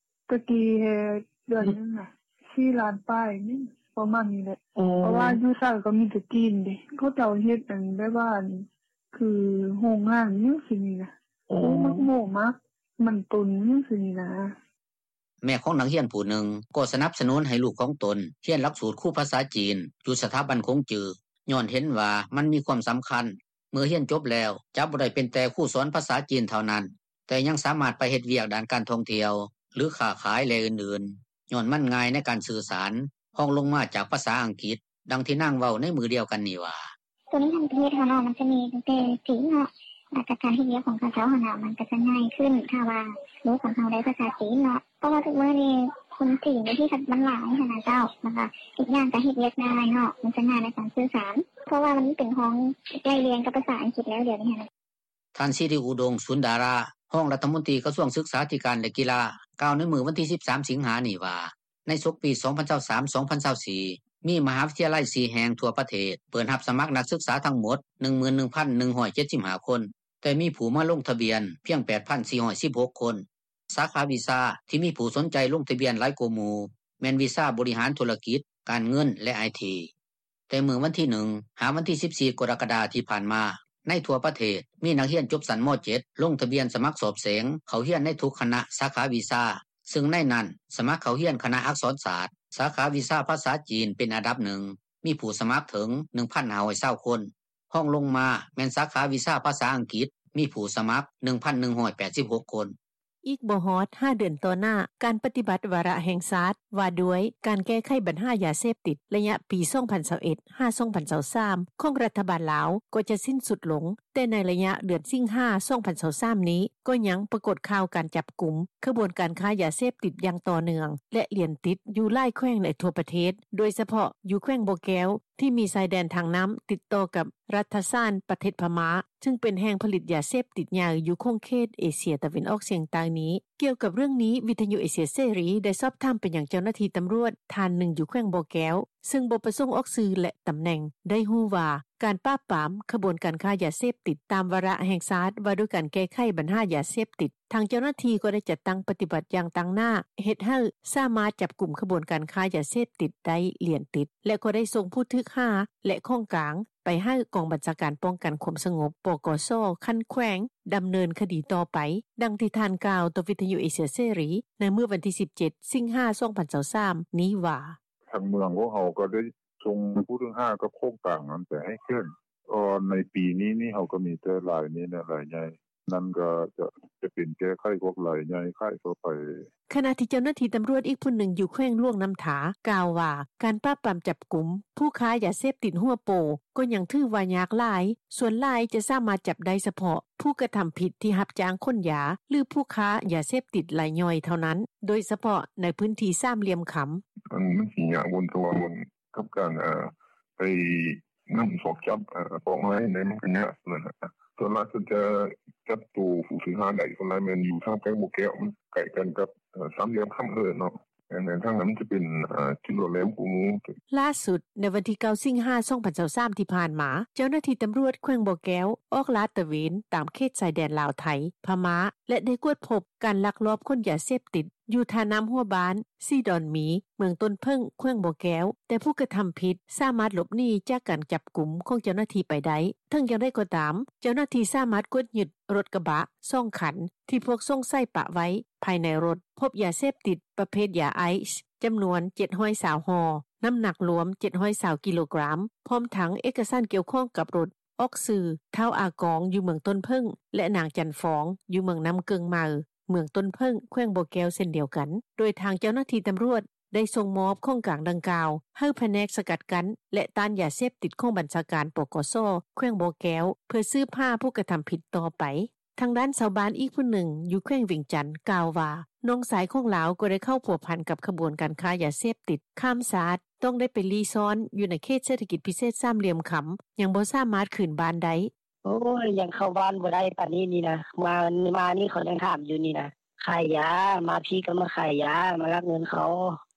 ແຕ່ກີ້ແຮ່ເດືອນໜຶ່ງນະ ສີ່ລ້ານປາຍນີ້ ປະມານນີ້ແຫຼະ. ເພາະວ່າຢູ່ໃສກໍມີແຕ່ຈີນເດ້ ເຂົາເຈົ້າເຮັດອັນແບບວ່າ ຄືໂຮງງານຫຍັງຊີ້ນີ້ນະ ໂອ້ ມັກໂມ້ມັກມັນຕົນຫຍັງຊີ້ນີ້ນະ.” ແມ່ຂອງນັກຮຽນຜູ້ໜຶ່ງກໍສະໜັບສະໜູນໃຫ້ລູກຂອງຕົນຮຽນຫຼັກສູດຄູພາສາຈີນ ຢູ່ສະຖາບັນຂົງຈື້ ຍ້ອນເຫັນວ່າມັນມີຄວາມສຳຄັນ ເມື່ອຮຽນຈົບແລ້ວຈະບໍ່ໄດ້ເປັນແຕ່ຄູສອນພາສາຈີນເທົ່ານັ້ນ ແຕ່ຍັງສາມາດໄປເຮັດວຽກດ້ານການທ່ອງທ່ຽວ ຫຼື ຄ້າຂາຍ ແລະອື່ນໆ ຍ້ອນມັນງ່າຍໃນການສື່ສານ ຮອງລົງມາຈາກພາສາອັງກິດ. ດັ່ງທີ່ນາງເວົ້າໃນມື້ດຽວກັນນີ້ວ່າ: “ຕົວນີ້ຫັ້ນປະເທດເຮົາເນາະ ມັນຈະມີຕັ້ງແຕ່ຈີນເນາະ ແລ້ວກໍການເຮັດວຽກຂອງເຂົາເຈົ້າຫັ້ນນະ ມັນກໍຈະງ່າຍຂຶ້ນ ຖ້າວ່າລູກຂອງເຮົາໄດ້ພາສາຈີນເນາະ ເພາະວ່າທຸກມື້ນີ້ຄົນຈີນຢູ່ທີ່ມັນຫຼາຍຫັ້ນນະເຈົ້າ ແລ້ວກໍອີກຢ່າງກໍເຮັດວຽກງ່າຍເນາະ ມັນຈະງ່າຍໃນການສື່ສານ ເພາະວ່າມັນເປັນຮອງໄລ່ລຽງກັບພາສາອັງກິດແລ້ວດຽວນີ້ຫັ້ນນະ.” ທ່ານ ສິລິອຸດົງ ສູນດາລາ ຮອງລັດຖະມົນຕີກະຊວງສຶກສາທິການ ແລະ ກິລາ ກ່າວໃນມື້ວັນທີສິບສາມ ສິງຫານີ້ວ່າ ໃນສົກປີສອງພັນຊາວສາມ ສອງພັນຊາວສີ່ ມີມະຫາວິທະຍາໄລສີ່ແຫ່ງທົ່ວປະເທດ ເປີດຮັບສະໝັກນັກສຶກສາທັງໝົດ ໜຶ່ງໝື່ນໜຶ່ງພັນໜຶ່ງຮ້ອຍເຈັດສິບຫ້າຄົນ ແຕ່ມີຜູ້ມາລົງທະບຽນພຽງແປດພັນສີ່ຮ້ອຍສິບຫົກຄົນ. ສາຂາວິຊາທີ່ມີຜູ້ສົນໃຈລົງທະບຽນຫຼາຍກວ່າໝູ່ ແມ່ນວິຊາບໍລິຫານທຸລະກິດ, ການເງິນ ແລະ ໄອທີ. ແຕ່ມື້ວັນທີໜຶ່ງ ຫາວັນທີສິບສີ່ ກໍລະກະດາທີ່ຜ່ານມາ, ໃນທົ່ວປະເທດ ມີນັກຮຽນຈົບຊັ້ນ ມ.ເຈັດ ລົງທະບຽນສະໝັກສອບເສັງເຂົ້າຮຽນໃນທຸກຄະນະສາຂາວິຊາ, ຊຶ່ງໃນນັ້ນສະໝັກເຂົ້າຮຽນຄະນະອັກສອນສາດ, ສາຂາວິຊາພາສາຈີນເປັນອັນດັບໜຶ່ງ ມີຜູ້ສະໝັກເຖິງ ໜຶ່ງພັນຫ້າຮ້ອຍຊາວຄົນ. ຮອງລົງມາແມ່ນສາຂາວິຊາພາສາອັງກິດ ມີຜູ້ສະໝັກ ໜຶ່ງພັນໜຶ່ງຮ້ອຍແປດສິບຫົກຄົນ. ອີກບໍ່ຮອດຫ້າເດືອນຕໍ່ໜ້າ, ການປະຕິບັດວາລະແຫ່ງຊາດວ່າດ້ວຍການແກ້ໄຂບັນຫາຢາເສບຕິດ ໄລຍະປີສອງພັນຊາວເອັດ ຫາ ສອງພັນຊາວສາມ ຂອງລັດຖະບານລາວກໍຈະສິ້ນສຸດລົງ, ແຕ່ໃນໄລຍະເດືອນສິງຫາ ສອງພັນຊາວສາມນີ້ ກໍຍັງປາກົດຂ່າວການຈັບກຸມ, ຂະບວນການຄ້າຢາເສບຕິດຢ່າງຕໍ່ເນື່ອງ ແລະ ລຽນຕິດຢູ່ຫຼາຍແຂວງໃນທົ່ວປະເທດ, ໂດຍສະເພາະຢູ່ແຂວງບໍ່ແກ້ວ, ທີ່ມີຊາຍແດນທາງນໍ້າຕິດຕໍ່ກັບລັດຖະສານ ປະເທດພະມ້າ ຊຶ່ງເປັນແຫ່ງຜະລິດຢາເສບຕິດໃຫຍ່ຢູ່ຂົງເຂດເອເຊຍຕາເວັນອອກສຽງໃຕ້ນີ້. ກ່ຽວກັບເລື່ອງນີ້ ວິທຍຸເອເຊຍເສລີ ໄດ້ສອບຖາມໄປຍັງເຈົ້າໜ້າທີ່ຕຳຫຼວດທ່ານໜຶ່ງຢູ່ແຂວງບໍ່ແກ້ວ ຊຶ່ງບໍ່ປະສົງອອກຊື່ ແລະ ຕຳແໜ່ງ ໄດ້ຮູ້ວ່າ ການປາບປາມຂະບວນການຄ້າຢາເສບຕິດຕາມວາລະແຫ່ງຊາດວ່າດ້ວຍການແກ້ໄຂບັນຫາຢາເສບຕິດ ທາງເຈົ້າໜ້າທີ່ກໍໄດ້ຈັດຕັ້ງປະຕິບັດຢ່າງຕັ້ງໜ້າ ເຮັດໃຫ້ສາມາດຈັບກຸມຂະບວນການຄ້າຢາເສບຕິດໄດ້ຫຼຽນຕິດ ແລະ ກໍໄດ້ສົ່ງຜູ້ຖືກຫາ ແລະ ຂອງກາງໄປໃຫ້ກອງບັນຊາການປ້ອງກັນຄວາມສະຫງົບ ປກສ ຂັ້ນແຂວງ ດຳເນີນຄະດີຕໍ່ໄປ, ດັ່ງທີ່ທ່ານກ່າວຕໍ່ວິທຍຸເອເຊຍເສລີ ໃນມື້ວັນທີສິບເຈັດ ສິງຫາ ສອງພັນຊາວສາມ ນີ້ວ່າ: ທາງເມືອງພວກເຮົາກໍໄດ້ສົ່ງຜູ້ຖືກຫາກັບຂອງກາງນັ້ນໄປໃຫ້ແຂວງ. ເອີ ໃນປີນີ້ນີ້ ເຮົາກໍມີແຕ່ລາຍນີ້ແຫຼະ ລາຍໃຫຍ່ ນັ້ນກໍຈະ ຈະເປັນແກ້ໄຂພວກລາຍໃຫຍ່ຂາຍທົ່ວໄປ. ຂະນະທີ່ເຈົ້າໜ້າທີ່ຕຳຫຼວດອີກຜູ້ໜຶ່ງຢູ່ແຂວງຫຼວງນ້ຳທາ ກ່າວວ່າ ການປາບປາມຈັບກຸມຜູ້ຄ້າຢາເສບຕິດຫົວໂປ ກໍຍັງຖືວ່າຍາກຫຼາຍ, ສ່ວນຫຼາຍຈະສາມາດຈັບໄດ້ສະເພາະຜູ້ກະທຳຜິດທີ່ຮັບຈ້າງຂົນຢາ ຫຼື ຜູ້ຄ້າຢາເສບຕິດລາຍຍ່ອຍເທົ່ານັ້ນ, ໂດຍສະເພາະໃນພື້ນທີ່ສາມຫຼ່ຽມຄຳ. ມັນ ມັນຊິຍາກ ບ່ອນ ເພາະວ່າບ່ອນກັບການ ເອີ ໄປນຳສອກຈັບ ເອີ ປອກລາຍໃດ ມັນກໍຍາກ ສ່ວນຫຼາຍເພິ່ນຈະຈັບໂຕຜູ້ຖືກຫາໄດ້ ສ່ວນຫຼາຍແມ່ນຢູ່ທາງແຂວງບໍ່ແກ້ວ ມັນໃກ້ກັນກັບ ເອີ ສາມຫຼ່ຽມຄຳ ເອີ້ນເນາະ ແມ່ນ ທາງນັ້ນມັນຈະເປັນ ເອີ ຈຸດຫຼອດແຫຼມກວ່າໝູ່. ຫຼ້າສຸດໃນວັນທີເກົ້າ ສິງຫາ ສອງພັນຊາວສາມ ທີ່ຜ່ານມາ ເຈົ້າໜ້າທີ່ຕຳຫຼວດແຂວງບໍ່ແກ້ວ ອອກລາດຕະເວນຕາມເຂດຊາຍແດນລາວ-ໄທ ພະມ້າ ແລະ ໄດ້ກວດພົບການລັກລອບຂົນຢາເສບຕິດ ຢູ່ທ່ານ້ຳຫົວບ້ານ ສີດອນມີ ເມືອງຕົ້ນເຜິ້ງ ແຂວງບໍ່ແກ້ວ, ແຕ່ຜູ້ກະທຳຜິດສາມາດຫຼົບໜີຈາກການຈັບກຸມຂອງເຈົ້າໜ້າທີ່ໄປໄດ້. ເຖິງຢ່າງໃດກໍຕາມ, ເຈົ້າໜ້າທີ່ສາມາດກວດຍຶດລົດກະບະສອງຄັນ ທີ່ພວກສົງໄສປະໄວ້. ພາຍໃນລົດພົບຢາເສບຕິດປະເພດຢາໄອສ໌ ຈຳນວນເຈັດຮ້ອຍຊາວຫໍ່, ນ້ຳໜັກລວມເຈັດຮ້ອຍຊາວກິໂລກຣາມ, ພ້ອມທັງເອກະສານກ່ຽວຂ້ອງກັບລົດ ອອກຊື່ ທ້າວ ອາກອງ ຢູ່ເມືອງຕົ້ນເຜິ້ງ ແລະ ນາງ ຈັນຟອງ ຢູ່ເມືອງນ້ຳເກິ່ງໃໝ່ ເມືອງຕົ້ນເຜິ້ງ ແຂວງບໍ່ແກ້ວ ເຊັ່ນດຽວກັນ, ໂດຍທາງເຈົ້າໜ້າທີ່ຕຳຫຼວດໄດ້ສົ່ງມອບຂອງກາງດັ່ງກ່າວ ໃຫ້ພະແນກສະກັດກັ້ນ ແລະ ຕ້ານຢາເສບຕິດຂອງບັນຊາການ ປກສ ແຂວງບໍ່ແກ້ວ ເພື່ອສືບຫາຜູ້ກະທຳຜິດຕໍ່ໄປ. ທາງດ້ານຊາວບ້ານອີກຜູ້ໜຶ່ງຢູ່ແຂວງວຽງຈັນ ກ່າວວ່າ ນ້ອງຊາຍຂອງລາວກໍໄດ້ເຂົ້າພົວພັນກັບຂະບວນການຄ້າຢາເສບຕິດຂ້າມຊາດ, ຕ້ອງໄດ້ໄປລີ້ຊ່ອນຢູ່ໃນເຂດເສດຖະກິດພິເສດສາມຫຼ່ຽມຄຳ, ຍັງບໍ່ສາມາດຄືນບ້ານໄດ້. ໂອ້ຍ ຍັງເຂົ້າບ້ານບໍ່ໄດ້ປານນີ້ນີ້ນະ, ມາ ມານີ້ເຂົາຍັງຖາມຢູ່ນີ້ນະ, ຂາຍຢາ, ມາພີ້ກໍມາຂາຍຢາ, ມາລັກເງິນເຂົາ.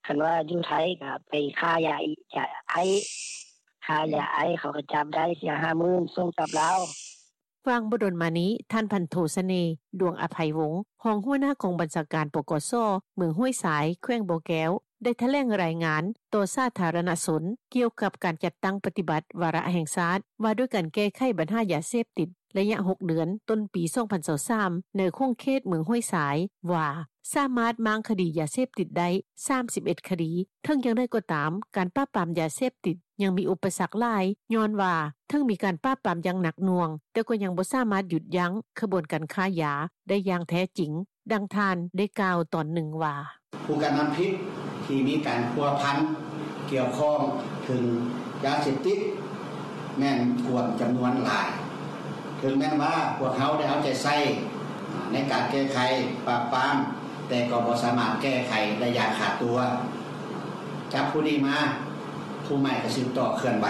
ຄັນວ່າຢູ່ໄທກໍໄປຄ້າຢາອີກ, ຢາໄອ, ຄ້າຢາໄອ ເຂົາກໍຈັບໄດ້ ເສຍຫ້າໝື່ນ ສົ່ງກັບລາວ. ຫວ່າງບໍ່ດົນມານີ້, ທ່ານ ພັນໂທ ສະເໜ່ ດວງອະໄພວົງ ຮອງຫົວໜ້າກອງບັນຊາການ ປກສ ເມືອງຫ້ວຍຊາຍ ແຂວງບໍ່ແກ້ວ ໄດ້ຖະແຫຼງລາຍງານຕໍ່ສາທາລະນະຊົນ ກ່ຽວກັບການຈັດຕັ້ງປະຕິບັດວາລະແຫ່ງຊາດ ວ່າດ້ວຍການແກ້ໄຂບັນຫາຢາເສບຕິດ ໄລຍະຫົກເດືອນ ຕົ້ນປີສອງພັນຊາວສາມ ໃນຂົງເຂດເມືອງຫ້ວຍຊາຍ ວ່າ ສາມາດມ້າງຄະດີຢາເສບຕິດໄດ້ສາມສິບເອັດຄະດີ. ເຖິງຢ່າງໃດກໍຕາມ, ການປາບປາມຢາເສບຕິດຍັງມີອຸປະສັກຫຼາຍ, ຍ້ອນວ່າເຖິງມີການປາບປາມຢ່າງໜັກໜ່ວງ, ແຕ່ກໍຍັງບໍ່ສາມາດຢຸດຢັ້ງຂະບວນການຄ້າຢາໄດ້ຢ່າງແທ້ຈິງ, ດັ່ງທ່ານໄດ້ກ່າວຕອນໜຶ່ງວ່າ: ຜູ້ກະທຳຜິດທີ່ມີການພົວພັນກ່ຽວຂ້ອງເຖິງຢາເສບຕິດ ແມ່ນກວມຈຳນວນຫຼາຍ. ເຖິງແມ່ນວ່າພວກເຮົາໄດ້ເອົາໃຈໃສ່ໃນການແກ້ໄຂປາບປາມ, ແຕ່ກໍບໍ່ສາມາດແກ້ໄຂໄດ້ຢ່າງຂາດຕົວ. ຈັບຜູ້ນີ້ມາ, ຜູ້ໃໝ່ກໍສືບຕໍ່ເຄື່ອນໄຫວ.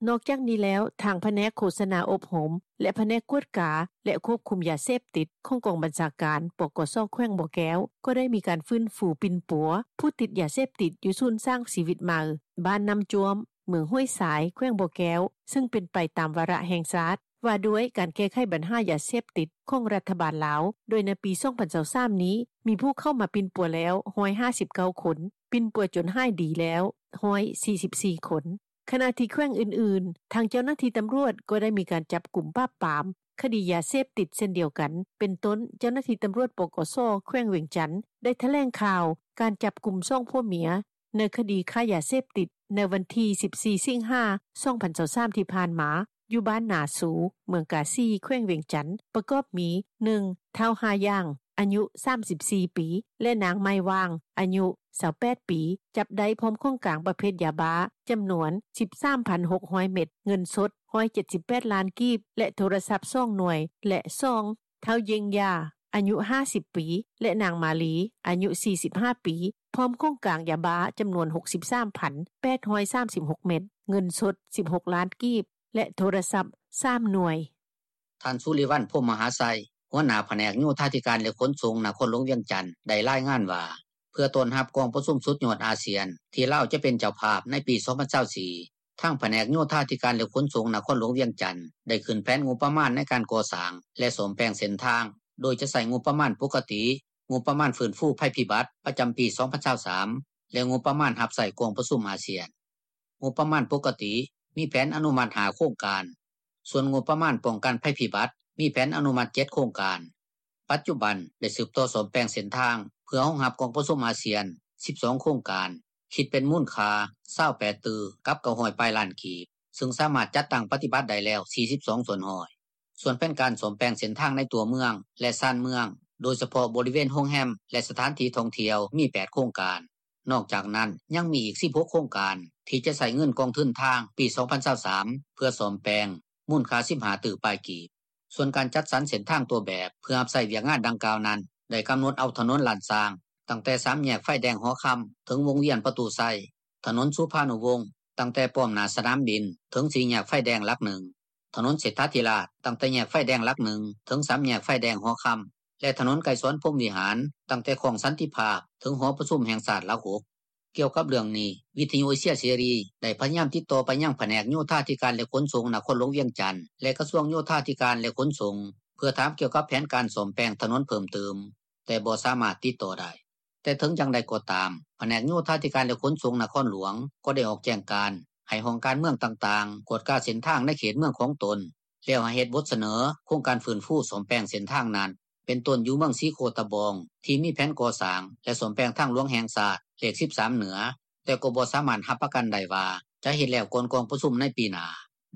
ນອກຈາກນີ້ແລ້ວ, ທາງພະແນກໂຄສະນາອົບຮົມ ແລະ ພະແນກກວດກາ ແລະ ຄວບຄຸມຢາເສບຕິດ ຂອງກອງບັນຊາການ ປກສ ແຂວງບໍ່ແກ້ວ ກໍໄດ້ມີການຟື້ນຟູປິ່ນປົວຜູ້ຕິດຢາເສບຕິດ ຢູ່ສູນສ້າງຊີວິດໃໝ່ ບ້ານນ້ຳຈ້ວມ ເມືອງຫ້ວຍຊາຍ ແຂວງບໍ່ແກ້ວ, ເຊິ່ງເປັນໄປຕາມວາລະແຫ່ງຊາດ ວ່າດ້ວຍການແກ້ໄຂບັນຫາຢາເສບຕິດຂອງລັດຖະບານລາວ, ໂດຍໃນປີສອງພັນຊາວສາມນີ້ ມີຜູ້ເຂົ້າມາປິ່ນປົວແລ້ວຮ້ອຍຫ້າສິບເກົ້າຄົນ, ປິ່ນປົວຈົນຫາຍດີແລ້ວຮ້ອຍສີ່ສິບສີ່ຄົນ. ຂະນະທີ່ແຂວງອື່ນໆ, ທາງເຈົ້າໜ້າທີ່ຕຳຫຼວດກໍໄດ້ມີການຈັບກຸມປາບປາມຄະດີຢາເສບຕິດເຊັ່ນດຽວກັນ, ເປັນຕົ້ນ ເຈົ້າໜ້າທີ່ຕຳຫຼວດ ປກສ ແຂວງວຽງຈັນ ໄດ້ຖະແຫຼງຂ່າວການຈັບກຸມສອງຜົວເມຍ ໃນຄະດີຄ້າຢາເສບຕິດ ໃນວັນທີສິບສີ່ ສິງຫາ ສອງພັນຊາວສາມ ທີ່ຜ່ານມາ ຢູ່ບ້ານນາຊູ ເມືອງກາສີ ແຂວງວຽງຈັນ ປະກອບມີ ໜຶ່ງ ທ້າວ ຫ້າຢ່າງ ອາຍຸສາມສິບສີ່ປີ ແລະ ນາງ ໄມ້ຫວ່າງ ອາຍຸຊາວແປດປີ, ຈັບໄດ້ພ້ອມຂອງກາງປະເພດຢາບ້າ ຈຳນວນສິບສາມພັນຫົກຮ້ອຍເມັດ, ເງິນສົດຮ້ອຍເຈັດສິບແປດລ້ານກີບ ແລະ ໂທລະສັບສອງໜ່ວຍ ແລະ ສອງ ທ້າວ ເຢັງຢາ ອາຍຸຫ້າສິບປີ ແລະ ນາງ ມາລີ ອາຍຸສີ່ສິບຫ້າປີ ພ້ອມຂອງກາງຢາບ້າຈຳນວນ 63,836 ເມັດ, ເງິນສົດ 16 ລ້ານກີບ ແລະໂທລະສັບ 3 ໜ່ວຍ. ທ່ານ ສຸລິວັນ ພົມມະຫາໄຊ ຫົວໜ້າພະແນກໂຍທາທິການ ແລະຂົນສົ່ງ ນະຄອນຫຼວງວຽງຈັນ ໄດ້ລາຍງານວ່າ ເພື່ອຕ້ອນຮັບກອງປະຊຸມສຸດຍອດອາຊຽນ ທີ່ລາວຈະເປັນເຈົ້າພາບໃນປີ 2024 ທາງພະແນກໂຍທາທິການ ແລະຂົນສົ່ງ ນະຄອນຫຼວງວຽງຈັນ ໄດ້ຂຶ້ນແຜນງົບປະມານໃນການກໍ່ສ້າງ ແລະສ້ອມແປງເສັ້ນທາງ ໂດຍຈະໃຊ້ງົບປະມານປົກກະຕິ, ງົບປະມານຟື້ນຟູໄພພິບັດ ປະຈຳປີ 2023 ແລະງົບປະມານຮັບໃຊ້ກອງປະຊຸມອາຊຽນ. ງົບປະມານປົກກະຕິ ມີແຜນອະນຸມັດ 5 ໂຄງການ, ສ່ວນງົບປະມານປ້ອງກັນໄພພິບັດ ມີແຜນອະນຸມັດ 7 ໂຄງການ. ປັດຈຸບັນໄດ້ສືບຕໍ່ສ້ອມແປງເສັ້ນທາງ ເພື່ອຮອງຮັບກອງປະຊຸມອາຊຽນ 12 ໂຄງການ, ຄິດເປັນມູນຄ່າ 28 ຕື້ກັບ 900 ປາຍລ້ານກີບ, ຊຶ່ງສາມາດຈັດຕັ້ງປະຕິບັດໄດ້ແລ້ວ 42%. ສ່ວນແຜນການສ້ອມແປງເສັ້ນທາງໃນຕົວເມືອງ ແລະຊານເມືອງ, ໂດຍສະເພາະບໍລິເວນໂຮງແຮມ ແລະສະຖານທີ່ທ່ອງທ່ຽວ ມີ 8 ໂຄງການ. ນອກຈາກນັ້ນ ຍັງມີອີກ 16 ໂຄງການ ທີ່ຈະໃຊ້ເງິນກອງທຶນທາງປີ 2023 ເພື່ອສ້ອມແປງ ມູນຄ່າ 15 ຕື້ປາຍກີບ. ສ່ວນການຈັດສັນເສັ້ນທາງຕົວແບບ ເພື່ອຮັບໃຊ້ວຽກງານດັ່ງກ່າວນັ້ນ ໄດ້ກຳນົດເອົາຖະໜົນລ້ານຊ້າງ ຕັ້ງແຕ່ສາມແຍກໄຟແດງຫໍຄຳ ເຖິງວົງວຽນປະຕູໄຊ, ຖະໜົນສຸພານຸວົງ ຕັ້ງແຕ່ປ້ອມໜ້າສະໜາມບິນ ເຖິງສີ່ແຍກໄຟແດງຫຼັກໜຶ່ງ, ຖະໜົນເສດຖາທິລາດ ຕັ້ງແຕ່ແຍກໄຟແດງຫຼັກໜຶ່ງ ເຖິງສາມແຍກໄຟແດງຫໍຄຳ ແລະຖະໜົນໄກສອນ ພົມວິຫານ ຕັ້ງແຕ່ຄ້ອງສັນຕິພາບ ເຖິງຫໍປະຊຸມແຫ່ງຊາດຫຼັກ 6. ກ່ຽວກັບເລື່ອງນີ້, ວິທຍຸເອເຊຍເສລີ ໄດ້ພະຍາຍາມຕິດຕໍ່ໄປຍັງພະແນກໂຍທາທິການ ແລະຂົນສົ່ງ ນະຄອນຫຼວງວຽງຈັນ ແລະກະຊວງໂຍທາທິການ ແລະຂົນສົ່ງ ເພື່ອຖາມກ່ຽວກັບແຜນການສ້ອມແປງຖະໜົນເພີ່ມຕື່ມ, ແຕ່ບໍ່ສາມາດຕິດຕໍ່ໄດ້. ແຕ່ເຖິງຢ່າງໃດກໍຕາມ, ພະແນກໂຍທາທິການ ແລະຂົນສົ່ງນະຄອນຫຼວງ ກໍໄດ້ອອກແຈ້ງການໃຫ້ຫ້ອງການເມືອງຕ່າງໆ ກວດກາເສັ້ນທາງໃນເຂດເມືອງຂອງຕົນ, ແລ້ວໃຫ້ເຮັດບົດສະເໜີໂຄງການຟື້ນຟູສ້ອມແປງເສັ້ນທາງນັ້ນ, ເປັນຕົ້ນຢູ່ເມືອງສີໂຄດຕະບອງ ທີ່ມີແຜນກໍ່ສ້າງ ແລະສ້ອມແປງທາງຫຼວງແຫ່ງຊາດ ເລກ 13 ເໜືອ, ແຕ່ກໍບໍ່ສາມາດຮັບປະກັນໄດ້ວ່າ ຈະເຮັດແລ້ວກ່ອນກອງປະຊຸມໃນປີໜ້າ.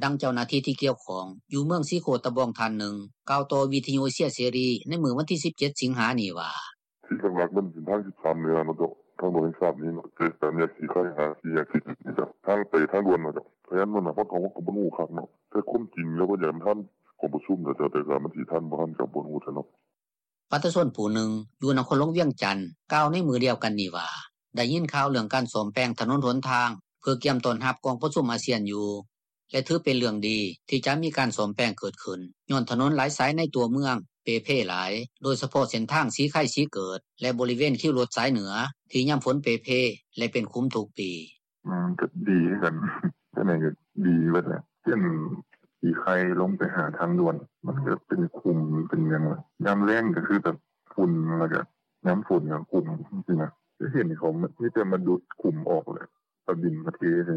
ດັ່ງເຈົ້າໜ້າທີ່ທີ່ກ່ຽວຂ້ອງ ຢູ່ເມືອງສີໂຄດຕະບອງທ່ານໜຶ່ງ ກ່າວຕໍ່ວິທຍຸເອເຊຍເສລີ ໃນມື້ວັນທີ 17 ສິງຫານີ້ວ່າ: ທີ່ຫຼັກໆ ມັນເປັນທາງ 13 ເໜືອເນາະເຈົ້າ, ທາງຫຼວງແຫ່ງຊາດນີ້ເນາະ, ຈາກສາມແຍກສີໄຄຫາສີ່ແຍກສີເຈັດນີ້ເຈົ້າ, ທາງໄປທາງດ່ວນເນາະເຈົ້າ. ພະຍານມັນນະ ເຮົາກໍ ເຮົາກໍບໍ່ຮູ້ຄັກເນາະ, ແຕ່ຄວາມຈິງແລ້ວ ເພິ່ນຢາກໃຫ້ມັນທັນກອງປະຊຸມແຫຼະເຈົ້າ, ແຕ່ກະມັນຊິທັນບໍ່ທັນ ກະບໍ່ຮູ້ແທ້ເນາະ. ປະຊາຊົນຜູ້ໜຶ່ງ ຢູ່ນະຄອນຫຼວງວຽງຈັນ ກ່າວໃນມື້ດຽວກັນນີ້ວ່າ ໄດ້ຍິນຂ່າວເລື່ອງການສ້ອມແປງຖະໜົນຫົນທາງ ເພື່ອກຽມຕ້ອນຮັບກອງປະຊຸມອາຊຽນຢູ່ ແລະຖືເປັນເລື່ອງດີ ທີ່ຈະມີການສ້ອມແປງເກີດຂຶ້ນ ຍ້ອນຖະໜົນຫຼາຍສາຍໃນຕົວເມືອງເປ່ເພຫຼາຍ, ໂດຍສະເພາະເສັ້ນທາງສີໄຄ-ສີເກີດ ແລະບໍລິເວນຄິວລົດສາຍເໜືອ ທີ່ຍາມຝົນເປ່ເພ ແລະເປັນຂຸມທຸກປີ. ມັນກໍດີຄືກັນ, ຈັ່ງໃດກໍດີເບິດແຫຼະ, ເສັ້ນສີໄຄລົງໄປຫາທາງດ່ວນ ມັນກໍເປັນຂຸມເປັນຫຍັງ, ຍາມແລ້ງກໍຄືແບບຝຸ່ນ ແລ້ວກໍຍາມຝົນກໍຂຸມຈັ່ງຊີ້ນະ. ກໍເຫັນເຂົາມີແຕ່ມາດຸດຂຸມອອກແຫຼະ, ເອົາດິນມາເທໃສ່,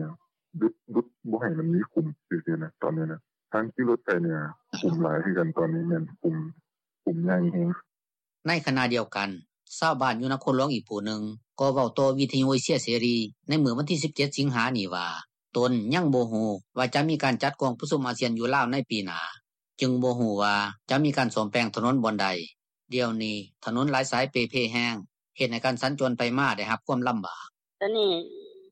ດຸດ ດຸດບໍ່ໃຫ້ມັນມີຂຸມຊື່ໆນະ. ຕອນນີ້ນະ ທາງຂີ່ລົດໄປເໜືອຂຸມຫຼາຍຄືກັນ, ຕອນນີ້ແມ່ນຂຸມ ຂຸມໃຫຍ່ແຮງ. ໃນຂະນະດຽວກັນ, ຊາວບ້ານຢູ່ນະຄອນຫຼວງອີກຜູ້ໜຶ່ງ ກໍເວົ້າຕໍ່ວິທຍຸເອເຊຍເສລີ ໃນມື້ວັນທີ 17 ສິງຫານີ້ວ່າ ຕົນຍັງບໍ່ຮູ້ວ່າຈະມີການຈັດກອງປະຊຸມອາຊຽນຢູ່ລາວໃນປີໜ້າ, ຈຶ່ງບໍ່ຮູ້ວ່າຈະມີການສ້ອມແປງຖະໜົນບ່ອນໃດ. ດຽວນີ້ຖະໜົນຫຼາຍສາຍເປ່ເພແຮງ, ເຮັດໃຫ້ການສັນຈອນໄປມາໄດ້ຮັບຄວາມລຳບາກ. ຕອນນີ້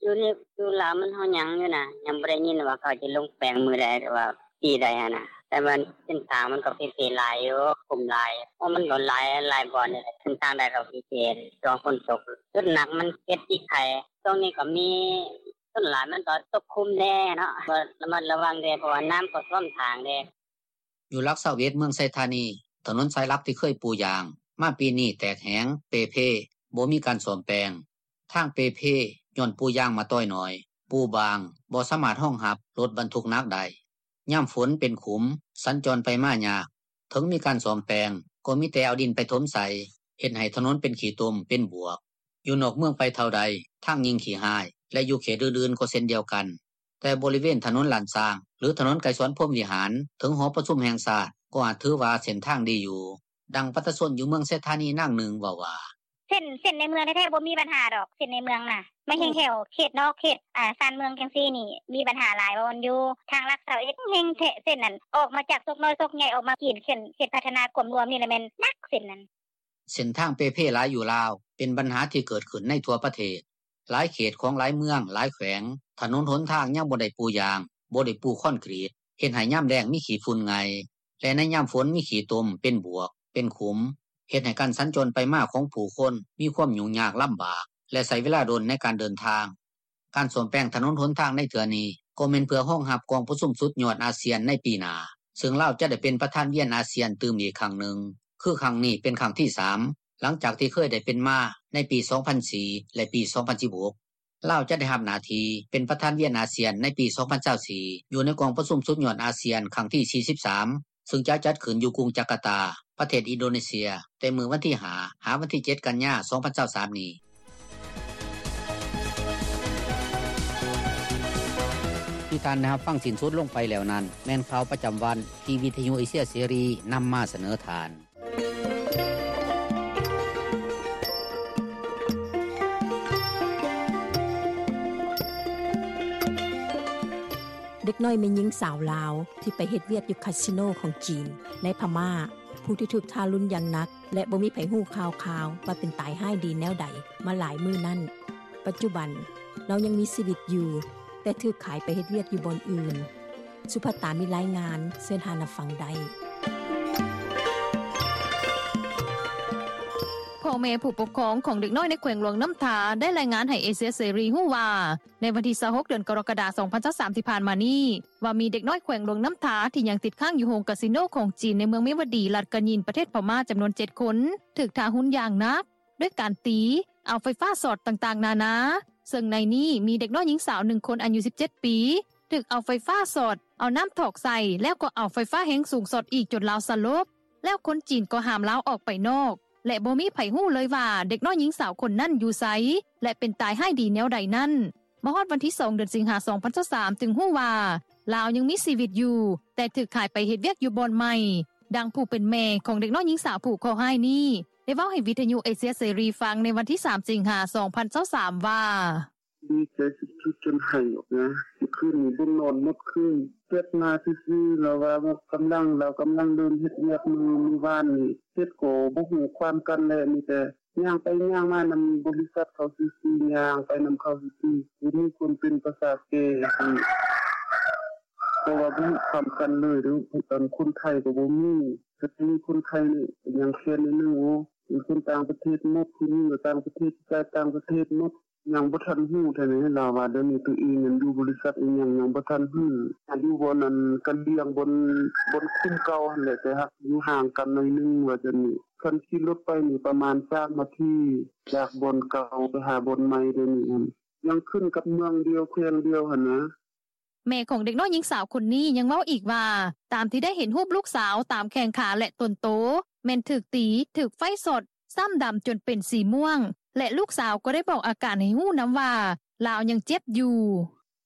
ຢູ່ໃນ ຢູ່ລາວມັນເຮົາຍັງຢູ່ນະ, ຍັງບໍ່ໄດ້ຍິນວ່າເຂົາຈະລົງແປງມື້ໃດ ຫຼືວ່າປີໃດຫັ້ນນະ, ແຕ່ວ່າເສັ້ນທາງມັນກໍເປ່ເພຫຼາຍຢູ່, ຂຸມຫຼາຍ, ໂອ້ ມັນກໍຫຼາຍ ຫຼາຍບ່ອນເດ, ເສັ້ນທາງໃດກໍເປ່ເພ ຊ່ວງຝົນຕົກ. ຈຸດໜັກມັນເຂດສີໄຄ, ຊ່ວງນີ້ກໍມີ ສ່ວນຫຼາຍມັນກໍຕົກຂຸມແດ່ເນາະ, ກໍລະມັດລະວັງແດ່ ເພາະວ່ານ້ຳກໍຖ້ວມທາງເດ້. ຢູ່ຫຼັກ 21 ເມືອງໄຊທານີ, ຖະໜົນສາຍຫຼັກທີ່ເຄີຍປູຢາງ ມາປີນີ້ແຕກແຫງ, ເປ່ເພ, ບໍ່ມີການສ້ອມແປງ. ທາງເປ່ເພ ຍ້ອນປູຢາງມາຕ້ອຍໜ້ອຍ, ປູບາງ, ບໍ່ສາມາດຮອງຮັບລົດບັນທຸກໜັກໄດ້. ຍາມຝົນເປັນຂຸມ, ສັນຈອນໄປມາຍາກ. ເຖິງມີການສ້ອມແປງ ກໍມີແຕ່ເອົາດິນໄປຖົມໃສ່, ເຮັດໃຫ້ຖະໜົນເປັນຂີ້ຕົມ, ເປັນບວກ. ຢູ່ນອກເມືອງໄປເທົ່າໃດ, ທາງຍິ່ງຂີ້ຮ້າຍ ແລະຢູ່ເຂດອື່ນໆກໍເຊັ່ນດຽວກັນ. ແຕ່ບໍລິເວນຖະໜົນລ້ານຊ້າງ ຫຼື ຖະໜົນໄກສອນ ພົມວິຫານ ເຖິງຫໍປະຊຸມແຫ່ງຊາດ ກໍອາດຖືວ່າເສັ້ນທາງດີຢູ່. ດັ່ງປະຊາຊົນຢູ່ເມືອງໄຊທານີນາງໜຶ່ງເວົ້າວ່າ: ເສັ້ນ ເສັ້ນໃນເມືອງແທ້ໆບໍ່ມີບັນຫາດອກ, ເສັ້ນໃນເມືອງນະ. ມາແຮງແຖວເຂດນອກ ເຂດ ອາ ຊານເມືອງຈັ່ງຊີ້ນີ້ ມີບັນຫາຫຼາຍບ່ອນຢູ່. ທາງຫຼັກ 21 ແຮງແທ້ ເສັ້ນນັ້ນ ອອກມາຈາກໂຊກນ້ອຍໂຊກໃຫຍ່ ອອກມາກິນເຂດ ເຂດພັດທະນາກວມລວມນີ້ລະແມ່ນໜັກເສັ້ນນັ້ນ. ເສັ້ນທາງເປ່ເພຫຼາຍຢູ່ລາວ ເປັນບັນຫາທີ່ເກີດຂຶ້ນໃນທົ່ວປະເທດ. ຫຼາຍເຂດຂອງຫຼາຍເມືອງ, ຫຼາຍແຂວງ, ຖະໜົນຫົນທາງຍັງບໍ່ໄດ້ປູຢາງ, ບໍ່ໄດ້ປູຄອນກຣີດ, ເຮັດໃຫ້ຍາມແລ້ງມີຂີ້ຝຸ່ນໄງ່ ແລະໃນຍາມຝົນມີຂີ້ຕົມ, ເປັນບວກ, ເປັນຂຸມ, ເຮັດໃຫ້ການສັນຈອນໄປມາຂອງຜູ້ຄົນມີຄວາມຫຍຸ້ງຍາກລຳບາກ ແລະໃຊ້ເວລາດົນໃນການເດີນທາງ. ການສ້ອມແປງຖະໜົນຫົນທາງໃນເທື່ອນີ້ ກໍແມ່ນເພື່ອຮອງຮັບກອງປະຊຸມສຸດຍອດອາຊຽນໃນປີໜ້າ, ເຊິ່ງລາວຈະໄດ້ເປັນປະທານວຽນອາຊຽນຕື່ມອີກຄັ້ງໜຶ່ງ, ຄືຄັ້ງນີ້ເປັນຄັ້ງທີສາມ ຫຼັງຈາກທີ່ເຄີຍໄດ້ເປັນມາໃນປີສອງພັນສີ່ ແລະປີສອງພັນສິບຫົກ. ລາວຈະໄດ້ຮັບໜ້າທີ່ເປັນປະທານວຽນອາຊຽນໃນປີສອງພັນຊາວສີ່ ຢູ່ໃນກອງປະຊຸມສຸດຍອດອາຊຽນຄັ້ງທີສີ່ສິບສາມ ເຊິ່ງຈະຈັດຂຶ້ນຢູ່ກຸງຈາກາຕາ ປະເທດອິນໂດເນເຊຍ ແຕ່ມື້ວັນທີຫ້າ ຫາວັນທີເຈັດ ກັນຍາ ສອງພັນຊາວສາມນີ້. ທີ່ທ່ານໄດ້ຮັບຟັງສິ້ນສຸດລົງໄປແລ້ວນັ້ນ ແມ່ນຂ່າວປະຈຳວັນທີ່ວິທະຍຸເອເຊຍເສລີນຳມາສະເໜີທ່ານ. ເດັກນ້ອຍແມ່ຍິງສາວລາວ ທີ່ໄປເຮັດວຽກຢູ່ຄາສິໂນຂອງຈີນ ໃນພະມ້າ ຜູ້ທີ່ຖືກທາລຸນຢ່າງໜັກ ແລະ ບໍ່ມີໃຜຮູ້ຂ່າວຄາວວ່າເປັນຕາຍຮ້າຍດີແນວໃດມາຫຼາຍມື້ນັ້ນ, ປັດຈຸບັນລາວຍັງມີຊີວິດຢູ່ ແຕ່ຖືກຂາຍໄປເຮັດວຽກຢູ່ບ່ອນອື່ນ. ສຸພັດຕາມີລາຍງານ, ເຊີນທ່ານຮັບຟັງໄດ້. ພໍ່ແມ່ຜູ້ປົກຄອງຂອງເດັກນ້ອຍໃນແຂວງຫຼວງນ້ຳທາ ໄດ້ລາຍງານໃຫ້ເອເຊຍເສລີຮູ້ວ່າ ໃນວັນທີຊາວຫົກ ເດືອນກໍລະກະດາ ສອງພັນຊາວສາມ ທີ່ຜ່ານມານີ້ ວ່າມີເດັກນ້ອຍແຂວງຫຼວງນ້ຳທາ ທີ່ຍັງຕິດຄ້າງຢູ່ໂຮງກາສິໂນຂອງຈີນ ໃນເມືອງເມວະດີ ລັດກະຍິນ ປະເທດພະມ້າ ຈຳນວນເຈັດຄົນ ຖືກທາຮຸນຢ່າງໜັກ ດ້ວຍການຕີ, ເອົາໄຟຟ້າຊ໊ອດຕ່າງໆນານາ, ເຊິ່ງໃນນີ້ມີເດັກນ້ອຍຍິງສາວໜຶ່ງຄົນອາຍຸສິບເຈັດປີ ຖືກເອົາໄຟຟ້າຊ໊ອດ, ເອົານ້ຳຖອກໃສ່ ແລ້ວກໍເອົາໄຟຟ້າແຮງສູງຊ໊ອດອີກຈົນລາວສະຫຼົບ, ແລ້ວຄົນຈີນກໍຫ້າມລາວອອກໄປນອກ ແລະ ບໍ່ມີໃຜຮູ້ເລີຍວ່າເດັກນ້ອຍຍິງສາວຄົນນັ້ນຢູ່ໃສ ແລະ ເປັນຕາຍຮ້າຍດີແນວໃດນັ້ນ. ມາຮອດວັນທີສອງ ເດືອນສິງຫາ ສອງພັນຊາວສາມ ຈຶ່ງຮູ້ວ່າ ລາວຍັງມີຊີວິດຢູ່ ແຕ່ຖືກຂາຍໄປເຮັດວຽກຢູ່ບ່ອນໃໝ່. ດັ່ງຜູ້ເປັນແມ່ຂອງເດັກນ້ອຍຍິງສາວຜູ້ເຄາະຮ້າຍນີ້ ໄດ້ເວົ້າໃຫ້ວິທະຍຸເອເຊຍເສລີຟັງໃນວັນທີສາມ ສິງຫາ ສອງພັນຊາວສາມ ວ່າ: ດີໃຈສຸດໆຈົນໄຫ້ອອກມາ. ຄືນນີ້ບໍ່ນອນໝົດຄືນ, ແຊັດມາຊື່ໆ ລາວວ່າກຳລັງ ລາວກຳລັງເລີ່ມເຮັດວຽກມື້ ມື້ວານນີ້, ເຮັດກໍບໍ່ຮູ້ຄວາມກັນແຫຼະ, ມີແຕ່ ຍ່າງໄປຍ່າງມານຳບໍລິສັດເຂົາຊື່ໆ, ຍ່າງໄປນຳເຂົາຊື່ໆ, ບໍ່ມີຄົນເປັນພາສາແກ່ ເພາະວ່າບໍ່ຮູ້ຄວາມກັນເລີຍເດີ້. ຄົນໄທກໍບໍ່ມີ, ແຕ່ມີຄົນໄທນີ້ຍັງແຄ້ນໜ້ອຍໜຶ່ງ. ໂອ້ ເປັນຄົນຕ່າງປະເທດໝົດ, ຜູ້ຍິງກໍຕ່າງປະເທດ, ຜູ້ຊາຍຕ່າງປະເທດໝົດ. ຍັງບໍ່ທັນຮູ້ເທື່ອນີ້, ລາວວ່າດຽວນີ້ໂຕເອງນັ້ນຢູ່ບໍລິສັດອີ່ຫຍັງ ຍັງບໍ່ທັນຮູ້. ຢູ່ບ່ອນອັນກະລຽງ ບ່ອນ ບ່ອນຄຸ້ມເກົ່າຫັ້ນແຫຼະ, ແຕ່ຫາກຢູ່ຫ່າງກັນໜ້ອຍໜຶ່ງວ່າຊັ້ນນີ້. ຄັນຂີ່ລົດໄປນີ້ປະມານສາມນາທີ ຈາກບ່ອນເກົ່າໄປຫາບ່ອນໃໝ່ດຽວນີ້ຫັ້ນ. ຍັງຂຶ້ນກັບເມືອງດຽວ ແຂວງດຽວຫັ້ນນະ. ແມ່ຂອງເດັກນ້ອຍຍິງສາວຄົນນີ້ຍັງເວົ້າອີກວ່າ ຕາມທີ່ໄດ້ເຫັນຮູບລູກສາວຕາມແຂ້ງຂາ ແລະ ຕົ້ນໂຕ ແມ່ນຖືກຕີ, ຖືກໄຟຊ໊ອດ, ຊ້ຳດຳຈົນເປັນສີມ່ວງ ແລະ ລູກສາວກໍໄດ້ບອກອາການໃຫ້ຮູ້ນຳວ່າ ລາວຍັງເຈັບຢູ່.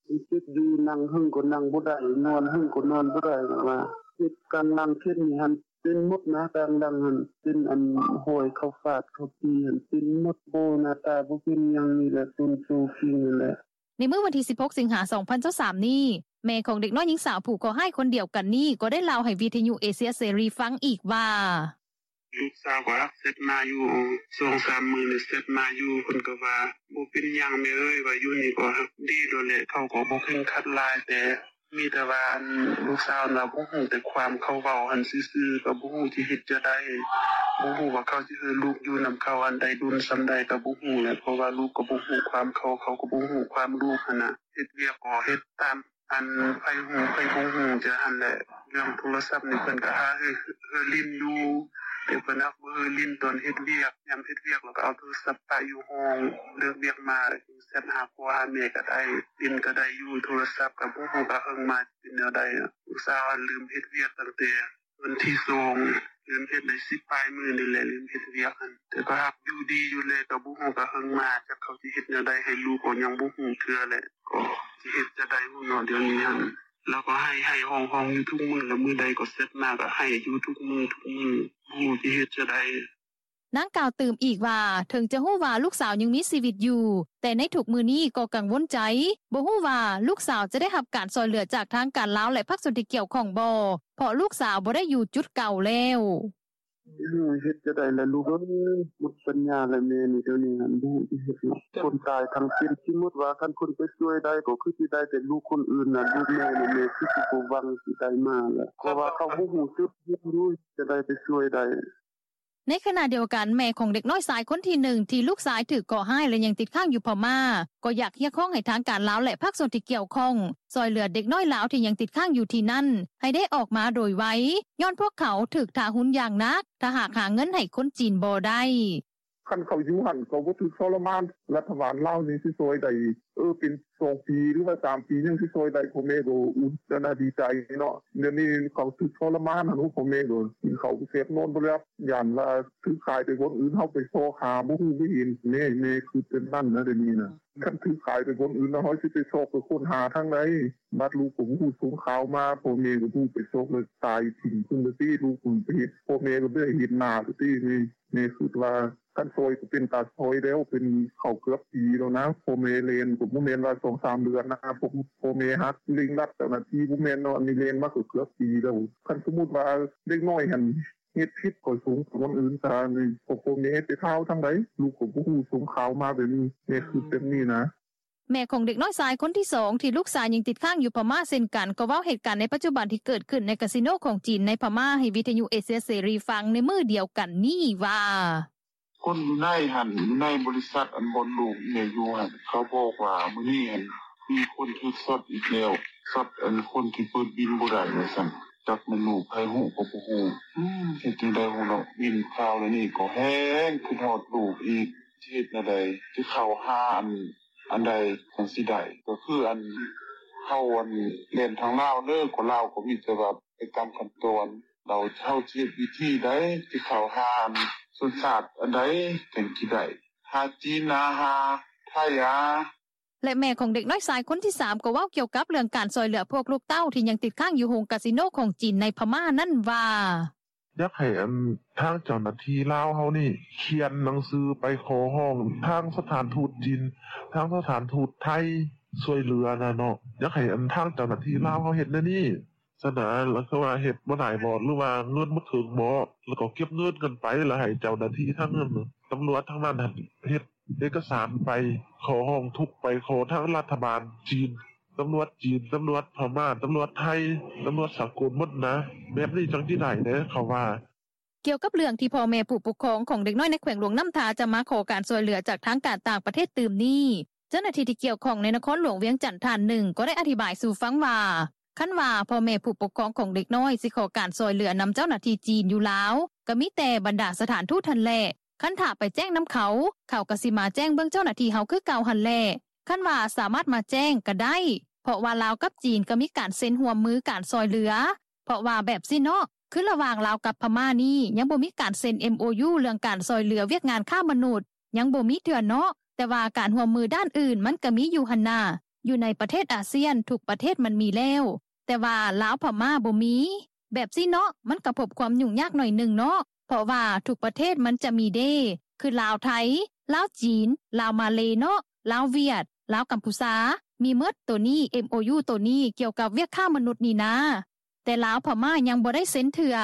ຍັງເຈັບຢູ່, ນັ່ງເຫິງກໍນັ່ງບໍ່ໄດ້, ນອນເຫິງກໍນອນບໍ່ໄດ້. ວ່າເຈັບກາງຫຼັງເຂດນີ້ຫັ້ນ ເປັນໝົດນະ, ກາງຫຼັງຫັ້ນ ເປັນອັນຮອຍເຂົາຟາດເຂົາຕີຫັ້ນ ເປັນໝົດ. ບໍ່ ໜ້າຕາບໍ່ເປັນຫຍັງ, ນີ້ແຫຼະ ຕົ້ນໂຕຟິງນັ້ນແຫຼະ. ໃນມື້ວັນທີສິບຫົກ ສິງຫາ ສອງພັນຊາວສາມນີ້ ແມ່ຂອງເດັກນ້ອຍຍິງສາວຜູ້ເຄາະຮ້າຍຄົນດຽວກັນນີ້ ກໍໄດ້ເລົ່າໃຫ້ວິທະຍຸເອເຊຍເສລີຟັງອີກວ່າ: ລູກສາວກໍຮັກແຊັດມາຢູ່ ສອງສາມມື້ນີ້ແຊັດມາຢູ່, ເພິ່ນກໍວ່າ ບໍ່ເປັນຫຍັງແມ່ເອີຍ, ວ່າຢູ່ນີ້ກໍຮັກດີໂລດແຫຼະ, ເຂົາກໍບໍ່ເຄັ່ງຄັດຫຼາຍ, ແຕ່ມີແຕ່ວ່າ ອັນ ລູກສາວລາວບໍ່ຮູ້ແຕ່ຄວາມເຂົາເວົ້າຫັ້ນຊື່ໆ, ກໍບໍ່ຮູ້ຊິເຮັດຈັ່ງໃດ, ບໍ່ຮູ້ວ່າເຂົາຊິໃຫ້ລູກຢູ່ນຳເຂົາອັນໃດ ດົນສ່ຳໃດກໍບໍ່ຮູ້ແຫຼະ, ເພາະວ່າລູກກໍບໍ່ຮູ້ຄວາມເຂົາ, ເຂົາກໍບໍ່ຮູ້ຄວາມລູກຫັ້ນນະ. ເຮັດວຽກກໍເຮັດຕາມ ອັນໃຜຮູ້ໃຜບໍ່ຮູ້ຈັ່ງຊັ້ນແຫຼະ. ເລື່ອງໂທລະສັບນີ້ເພິ່ນກໍຫາໃຫ້ເຮີຫຼິ້ນຢູ່, ແຕ່ເພິ່ນຫາກບໍ່ໃຫ້ຫຼິ້ນຕອນເຮັດວຽກ, ຍາມເຮັດວຽກແລ້ວກໍເອົາໂທລະສັບປະຢູ່ຫ້ອງ, ເລີກວຽກມາແຊັດຫາພໍ່ຫາແມ່ກໍໄດ້, ຫຼິ້ນກໍໄດ້ຢູ່. ໂທລະສັບກໍບໍ່ຮູ້ວ່າເຮີມາຊິເປັນແນວໃດ. ລູກສາວຫັ້ນເລີ່ມເຮັດວຽກຕັ້ງແຕ່ ວັນທີສອງ ເລີ່ມເຮັດໄດ້ສິບປາຍມື້ນີ້ແຫຼະ, ເລີ່ມເຮັດວຽກຫັ້ນ, ແຕ່ກໍຫາກຢູ່ດີຢູ່ແລ, ກໍບໍ່ຮູ້ວ່າເຮີມາ ຈັກເຂົາຊິເຮັດແນວໃດໃຫ້ລູກ, ກໍຍັງບໍ່ຮູ້ເທື່ອແຫຼະ, ກໍຊິເຮັດຈັ່ງໃດຮູ້ເນາະ ດຽວນີ້ຫັ້ນ. ລາວກໍໄຫ້ໆຮ້ອງໆຢູ່ທຸກມື້, ລະມື້ໃດກໍແຊັດມາກໍໄຫ້ຢູ່ທຸກມື້ທຸກມື້, ບໍ່ຮູ້ຊິເຮັດຈັ່ງໃດ. ນາງກ່າວຕື່ມອີກວ່າ ເຖິງຈະຮູ້ວ່າລູກສາວຍັງມີຊີວິດຢູ່, ແຕ່ໃນທຸກມື້ນີ້ກໍກັງວົນໃຈ, ບໍ່ຮູ້ວ່າລູກສາວຈະໄດ້ຮັບການຊ່ອຍເຫຼືອຈາກທາງການລາວ ແລະ ພາກສ່ວນທີ່ກ່ຽວຂ້ອງບໍ່, ເພາະລູກສາວບໍ່ໄດ້ຢູ່ຈຸດເກົ່າແລ້ວ. ເຮັດຈັ່ງໃດລະລູກເອີຍ, ໝົດປັນຍາລະແມ່ນີ້, ດຽວນີ້ຫັ້ນບໍ່ຮູ້ຊິເຮັດຫຍັງ. ຄົນຕາຍທັງເປັນ, ສົມມຸດວ່າຄັນເພິ່ນໄປຊ່ວຍໄດ້ກໍຄືຊິໄດ້, ແຕ່ລູກຄົນອື່ນນະ, ລູກແມ່ນີ້ແມ່ຄືຊິບໍ່ຫວັງຊິໄດ້ມາລະ, ເພາະວ່າເຂົາບໍ່ຮູ້ຈຸດເຮັດຢູ່, ຈະໄດ້ໄປຊ່ວຍໄດ້. ໃນຂະນະດຽວກັນ ແມ່ຂອງເດັກນ້ອຍຊາຍຄົນທີໜຶ່ງ ທີ່ລູກຊາຍຖືກເຄາະຮ້າຍ ແລະ ຍັງຕິດຄ້າງຢູ່ພະມ້າ ກໍຢາກຮຽກຮ້ອງໃຫ້ທາງການລາວ ແລະ ພາກສ່ວນທີ່ກ່ຽວຂ້ອງ ຊ່ອຍເຫຼືອເດັກນ້ອຍລາວທີ່ຍັງຕິດຄ້າງຢູ່ທີ່ນັ້ນ ໃຫ້ໄດ້ອອກມາໂດຍໄວ ຍ້ອນພວກເຂົາຖືກທາຮຸນຢ່າງໜັກ ຖ້າຫາກຫາເງິນໃຫ້ຄົນຈີນບໍ່ໄດ້. ຄັນເຂົາຢູ່ຫັ້ນ ເຂົາບໍ່ຖືກທໍລະມານ ລັດຖະບານລາວນີ້ຊິຊ່ອຍໄດ້ ເອີ ເປັນສອງປີ ຫຼືວ່າສາມປີ ຍັງຊິຊ່ອຍໄດ້ ພໍ່ແມ່ກໍອຸດອັນນະ ດີໃຈເນາະ. ດຽວນີ້ເຂົາຖືກທໍລະມານຫັ້ນ ໂອ້ ພໍ່ແມ່ກໍກິນເຂົ້າແຊບ ນອນບໍ່ຫຼັບ ຢ້ານວ່າຖືກຂາຍໄປບ່ອນອື່ນ ເຮົາໄປຊອກຫາບໍ່ຮູ້ບໍ່ເຫັນ. ແມ່ ແມ່ຄຶດແບບນັ້ນນະ ດຽວນີ້ນະ. ຄັນຖືກຂາຍໄປບ່ອນອື່ນແລ້ວ ເຮົາຊິໄປຊອກໄປຄົ້ນຫາທາງໃດ? ບາດລູກກໍບໍ່ຮູ້ສົ່ງຂ່າວມາ ພໍ່ແມ່ກໍບໍ່ໄປຊອກ ແລ້ວຕາຍຖິ້ມເພິ່ນແລ້ວຕິ ລູກເພິ່ນໄປເຮັດ ພໍ່ແມ່ກໍບໍ່ໄດ້ເຫັນໜ້າແລ້ວຕິ. ແມ່ຄຶດວ່າ ຄັນຊ່ອຍກໍເປັນຕາຊ່ອຍແລ້ວ ເປັນເຂົ້າເກືອບປີແລ້ວນະ. ພໍ່ແມ່ແລ່ນກໍບໍ່ແມ່ນວ່າສອງສາມເດືອນນະ ພວກພໍ່ແມ່ຮັກເລັ່ງລັດເຈົ້າໜ້າທີ່ບໍ່ແມ່ນເນາະ. ອັນນີ້ແລ່ນມາກໍເກືອບປີແລ້ວ. ຄັນສົມມຸດວ່າເດັກນ້ອຍຫັ້ນເຮັດຜິດ ກໍສົ່ງໄປບ່ອນອື່ນຊະ. ນີ້ ພໍ່ແມ່ໄປຂ່າວທາງໃດ ລູກກໍບໍ່ຮູ້ ສົ່ງຂ່າວມາແບບນີ້. ແມ່ຄຶດແບບນີ້ນະ. ແມ່ຂອງເດັກນ້ອຍຊາຍຄົນທີສອງ ທີ່ລູກຊາຍຍັງຕິດຄ້າງຢູ່ພະມ້າເຊັ່ນກັນ ກໍເວົ້າເຫດການໃນປັດຈຸບັນທີ່ເກີດຂຶ້ນໃນກາສິໂນຂອງຈີນໃນພະມ້າ ໃຫ້ວິທະຍຸເອເຊຍເສລີຟັງໃນມື້ດຽວກັນນີ້ວ່າ: ຄົນຢູ່ໃນຫັ້ນ ຢູ່ໃນບໍລິສັດ ອັນບ່ອນລູກແມ່ຢູ່ຫັ້ນ ເຂົາບອກວ່າມື້ນີ້ຫັ້ນ ມີຄົນຖືກຊັອດອີກແລ້ວ ຊັອດອັນຄົນທີ່ເປີດບິນບໍ່ໄດ້ວ່າຊັ້ນ. ຈັກແມ່ນລູກໃຜຮູ້ກໍບໍ່ຮູ້. ອືມ ເຮັດຈັ່ງໃດຮູ້ເນາະ ຍິນຂ່າວແນວນີ້ກໍແຮງຄິດຮອດລູກອີກ. ຊິເຮັດແນວໃດ ຊິເຂົ້າຫາອັນ ອັນໃດຈັ່ງຊິໄດ້ ກໍຄືອັນ ເຮົາອັນ ແລ່ນທາງລາວເດີ ກໍລາວກໍມີແຕ່ວ່າໄປຕາມຂັ້ນຕອນ. ແລ້ວເຮົາຊິເຮັດວິທີໃດ ຊິເຂົ້າຫາອັນ ສັນຊາດອັນໃດຈັ່ງຊິໄດ້ ຫາຈີນ ຫາ ຫາໄທ ຫາ. ແລະ ແມ່ຂອງເດັກນ້ອຍຊາຍຄົນທີສາມ ກໍເວົ້າກ່ຽວກັບເລື່ອງການຊ່ອຍເຫຼືອພວກລູກເຕົ້າທີ່ຍັງຕິດຄ້າງຢູ່ໂຮງກາສິໂນຂອງຈີນໃນພະມ້ານັ້ນວ່າ: ຢາກໃຫ້ອັນ ທາງເຈົ້າໜ້າທີ່ລາວເຮົານີ້ ຂຽນໜັງສືໄປຂໍຮ້ອງທາງສະຖານທູດຈີນ ທາງສະຖານທູດໄທ ຊ່ວຍເຫຼືອນະເນາະ. ຢາກໃຫ້ອັນ ທາງເຈົ້າໜ້າທີ່ລາວເຮົາເຮັດແນວນີ້ຊະນະ. ລະຄືວ່າເຮັດບໍ່ໄດ້ບໍ ຫຼືວ່າເງິນບໍ່ເຖິງບໍ ລະກໍເກັບເງິນກັນໄປ ລະໃຫ້ເຈົ້າໜ້າທີ່ທາງນັ້ນ ຕຳຫຼວດທາງນັ້ນຫັ້ນ ເຮັດເອກະສານໄປ ຂໍຮ້ອງທຸກໄປ ຂໍທາງລັດຖະບານຈີນ ຕຳຫຼວດຈີນ ຕຳຫຼວດພະມ້າ ຕຳຫຼວດໄທ ຕຳຫຼວດສາກົນໝົດນະ. ແບບນີ້ຈັ່ງຊິໄດ້ເດ້ ເຂົາວ່າ. ກ່ຽວກັບເລື່ອງທີ່ພໍ່ແມ່ຜູ້ປົກຄອງຂອງເດັກນ້ອຍໃນແຂວງຫຼວງນ້ຳທາ ຈະມາຂໍການຊ່ວຍເຫຼືອຈາກທາງການຕ່າງປະເທດຕື່ມນີ້ ເຈົ້າໜ້າທີ່ທີ່ກ່ຽວຂ້ອງໃນນະຄອນຫຼວງວຽງຈັນທ່ານໜຶ່ງ ກໍໄດ້ອະທິບາຍສູ່ຟັງວ່າ ຄັນວ່າພໍ່ແມ່ຜູ້ປົກຄອງຂອງເດັກນ້ອຍຊິຂໍການຊ່ອຍເຫຼືອນຳເຈົ້າໜ້າທີ່ຈີນຢູ່ລາວ ກໍມີແຕ່ບັນດາສະຖານທູດຫັ້ນແຫຼະ. ຄັນຖ້າໄປແຈ້ງນຳເຂົາ ເຂົາກໍຊິມາແຈ້ງເບິ່ງເຈົ້າໜ້າທີ່ເຮົາຄືເກົ່າຫັ້ນແຫຼະ. ຄັນວ່າສາມາດມາແຈ້ງກໍໄດ້ ເພາະວ່າລາວກັບຈີນກໍມີການເຊັນຮ່ວມມືການຊ່ອຍເຫຼືອ ເພາະວ່າແບບຊີ້ເນາະ ຄືລະຫວ່າງລາວກັບພະມ້ານີ້ ຍັງບໍ່ມີການເຊັນ ເອັມໂອຢູ ເລື່ອງການຊ່ອຍເຫຼືອວຽກງານຄ້າມະນຸດ ຍັງບໍ່ມີເທື່ອເນາະ. ແຕ່ວ່າການຮ່ວມມືດ້ານອື່ນມັນກໍມີຢູ່ຫັ້ນນາ ຢູ່ໃນປະເທດອາຊຽນທຸກປະເທດມັນມີແລ້ວ ແຕ່ວ່າລາວພະມ້າບໍ່ມີ. ແບບຊີ້ເນາະ ມັນກໍພົບຄວາມຫຍຸ້ງຍາກໜ້ອຍໜຶ່ງເນາະ ເພາະວ່າທຸກປະເທດມັນຈະມີເດ້ ຄືລາວໄທ ລາວຈີນ ລາວມາເລເນາະ ລາວຫວຽດ ລາວກຳພູຊາ ມີໝົດ. ໂຕນີ້ ເອັມໂອຢູ ໂຕນີ້ກ່ຽວກັບວຽກຄ້າມະນຸດນີ້ນາ ແຕ່ລາວພະມ້າຍັງບໍ່ໄດ້ເຊັນເທື່ອ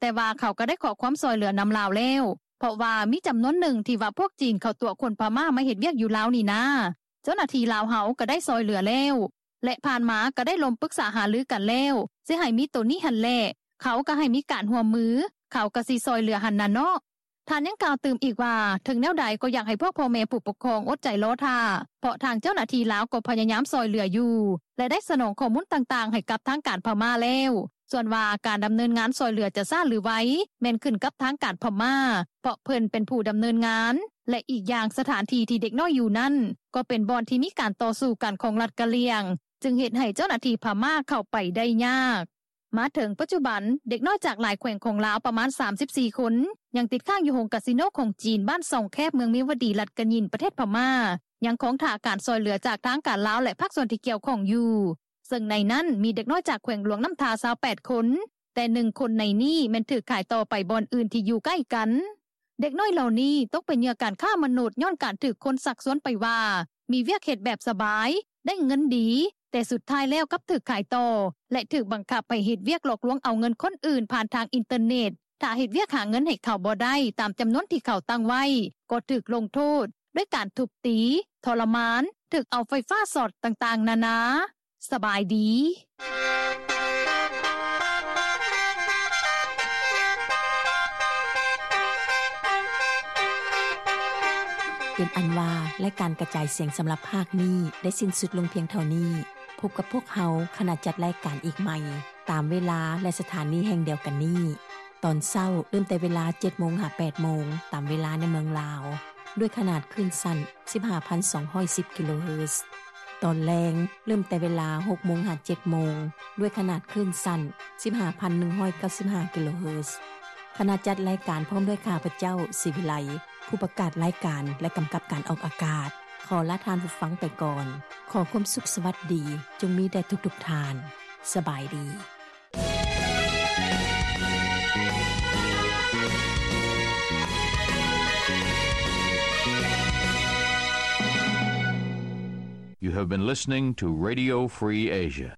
ແຕ່ວ່າເຂົາກໍໄດ້ຂໍຄວາມຊ່ອຍເຫຼືອນຳລາວແລ້ວ ເພາະວ່າມີຈຳນວນໜຶ່ງທີ່ວ່າພວກຈີນເຂົາຕົວະຄົນພະມ້າມາເຮັດວຽກຢູ່ລາວນີ້ນາ ເຈົ້າໜ້າທີ່ລາວເຮົາກໍໄດ້ຊ່ອຍເຫຼືອແລ້ວ ແລະ ຜ່ານມາກໍໄດ້ລົມປຶກສາຫາລືກັນແລ້ວ ຊິໃຫ້ມີໂຕນີ້ຫັ້ນແຫຼະ ເຂົາກໍໃຫ້ມີການຮ່ວມມື ເຂົາກໍຊິຊ່ອຍເຫຼືອຫັ້ນນະເນາະ. ທ່ານຍັງກ່າວຕື່ມອີກວ່າ ເຖິງແນວໃດກໍຢາກໃຫ້ພວກພໍ່ແມ່ຜູ້ປົກຄອງອົດໃຈລໍຖ້າ ເພາະທາງເຈົ້າໜ້າທີ່ລາວກໍພະຍາຍາມຊ່ອຍເຫຼືອຢູ່ ແລະ ໄດ້ສະໜອງຂໍ້ມູນຕ່າງໆໃຫ້ກັບທາງການພະມ້າແລ້ວ. ສ່ວນວ່າການດຳເນີນງານຊ່ອຍເຫຼືອຈະຊ້າຫຼືໄວ ແມ່ນຂຶ້ນກັບທາງການພະມ້າ ເພາະເພິ່ນເປັນຜູ້ດຳເນີນງານ ແລະ ອີກຢ່າງສະຖານທີ່ທີ່ເດັກນ້ອຍຢູ່ນັ້ນ ກໍເປັນບ່ອນທີ່ມີການຕໍ່ສູ້ກັນຂອງລັດກະຫຼ່ຽງ ຈຶ່ງເຮັດໃຫ້ເຈົ້າໜ້າທີ່ພະມ້າເຂົ້າໄປໄດ້ຍາກ. ມາເຖິງປັດຈຸບັນ ເດັກນ້ອຍຈາກຫຼາຍແຂວງຂອງລາວປະມານສາມສິບສີ່ຄົນ ຍັງຕິດຄ້າງຢູ່ໂຮງກາສິໂນຂອງຈີນ ບ້ານຊ່ອງແຄບ ເມືອງເມວະດີ ລັດກະຍິນ ປະເທດພະມ້າ ຍັງຄອງຖ້າການຊ່ອຍເຫຼືອຈາກທາງການລາວ ແລະ ພາກສ່ວນທີ່ກ່ຽວຂ້ອງຢູ່ ເຊິ່ງໃນນັ້ນມີເດັກນ້ອຍຈາກແຂວງຫຼວງນ້ຳທາຊາວແປດຄົນ ແຕ່ໜຶ່ງຄົນໃນນີ້ແມ່ນຖືກຂາຍຕໍ່ໄປບ່ອນອື່ນທີ່ຢູ່ໃກ້ກັນ. ເດັກນ້ອຍເຫຼົ່ານີ້ຕົກເປັນເຫຍື່ອການຄ້າມະນຸດ ຍ້ອນການຖືກຄົນຊັກຊວນໄປວ່າ ມີວຽກເຮັດແບບສະບາຍ ໄດ້ເງິນດີ ແຕ່ສຸດທ້າຍແລ້ວກັບຖືກຂາຍຕໍ່ ແລະ ຖືກບັງຄັບໃຫ້ເຮັດວຽກຫຼອກລວງເອົາເງິນຄົນອື່ນຜ່ານທາງອິນເຕີເນັດ. ຖ້າເຮັດວຽກຫາເງິນໃຫ້ເຂົາບໍ່ໄດ້ຕາມຈຳນວນທີ່ເຂົາຕັ້ງໄວ້ ກໍຖືກລົງໂທດດ້ວຍການທຸບຕີ, ທໍລະມານ, ຖືກເອົາໄຟຟ້າຊັອດຕ່າງໆນານາ. ສະບາຍດີ. ເປັນອັນວ່າ ລາຍການກະຈາຍສຽງສຳລັບພາກນີ້ ໄດ້ສິ້ນສຸດລົງພຽງເທົ່ານີ້. ພົບກັບພວກເຮົາ ຂະນະຈັດລາຍການອີກໃໝ່ ຕາມເວລາ ແລະ ສະຖານີແຫ່ງດຽວກັນນີ້ ຕອນເຊົ້າ ເລີ່ມແຕ່ເວລາ ເຈັດໂມງ ຫາ ແປດໂມງ ຕາມເວລາໃນເມືອງລາວ ດ້ວຍຂະໜາດຄື້ນສັ້ນ ສິບຫ້າພັນສອງຮ້ອຍສິບ ກິໂລເຮີດ. ຕອນແລງ ເລີ່ມແຕ່ເວລາ ຫົກໂມງ ຫາ ເຈັດໂມງ ດ້ວຍຂະໜາດຄື້ນສັ້ນ ສິບຫ້າພັນໜຶ່ງຮ້ອຍເກົ້າສິບຫ້າ ກິໂລເຮີດ. ຄະນະຈັດລາຍການ ພ້ອມດ້ວຍຂ້າພະເຈົ້າ ສີວິໄລ ຜູ້ປະກາດລາຍການ ແລະ ກຳກັບການອອກອາກາດ ຂໍລາທ່ານຜູ້ຟັງໄປກ່ອນ. ຂໍຄວາມສຸກສະຫວັດດີ ຈົ່ງມີແດ່ທຸກໆທ່ານ. ສະບາຍດີ. You have been listening to Radio Free Asia.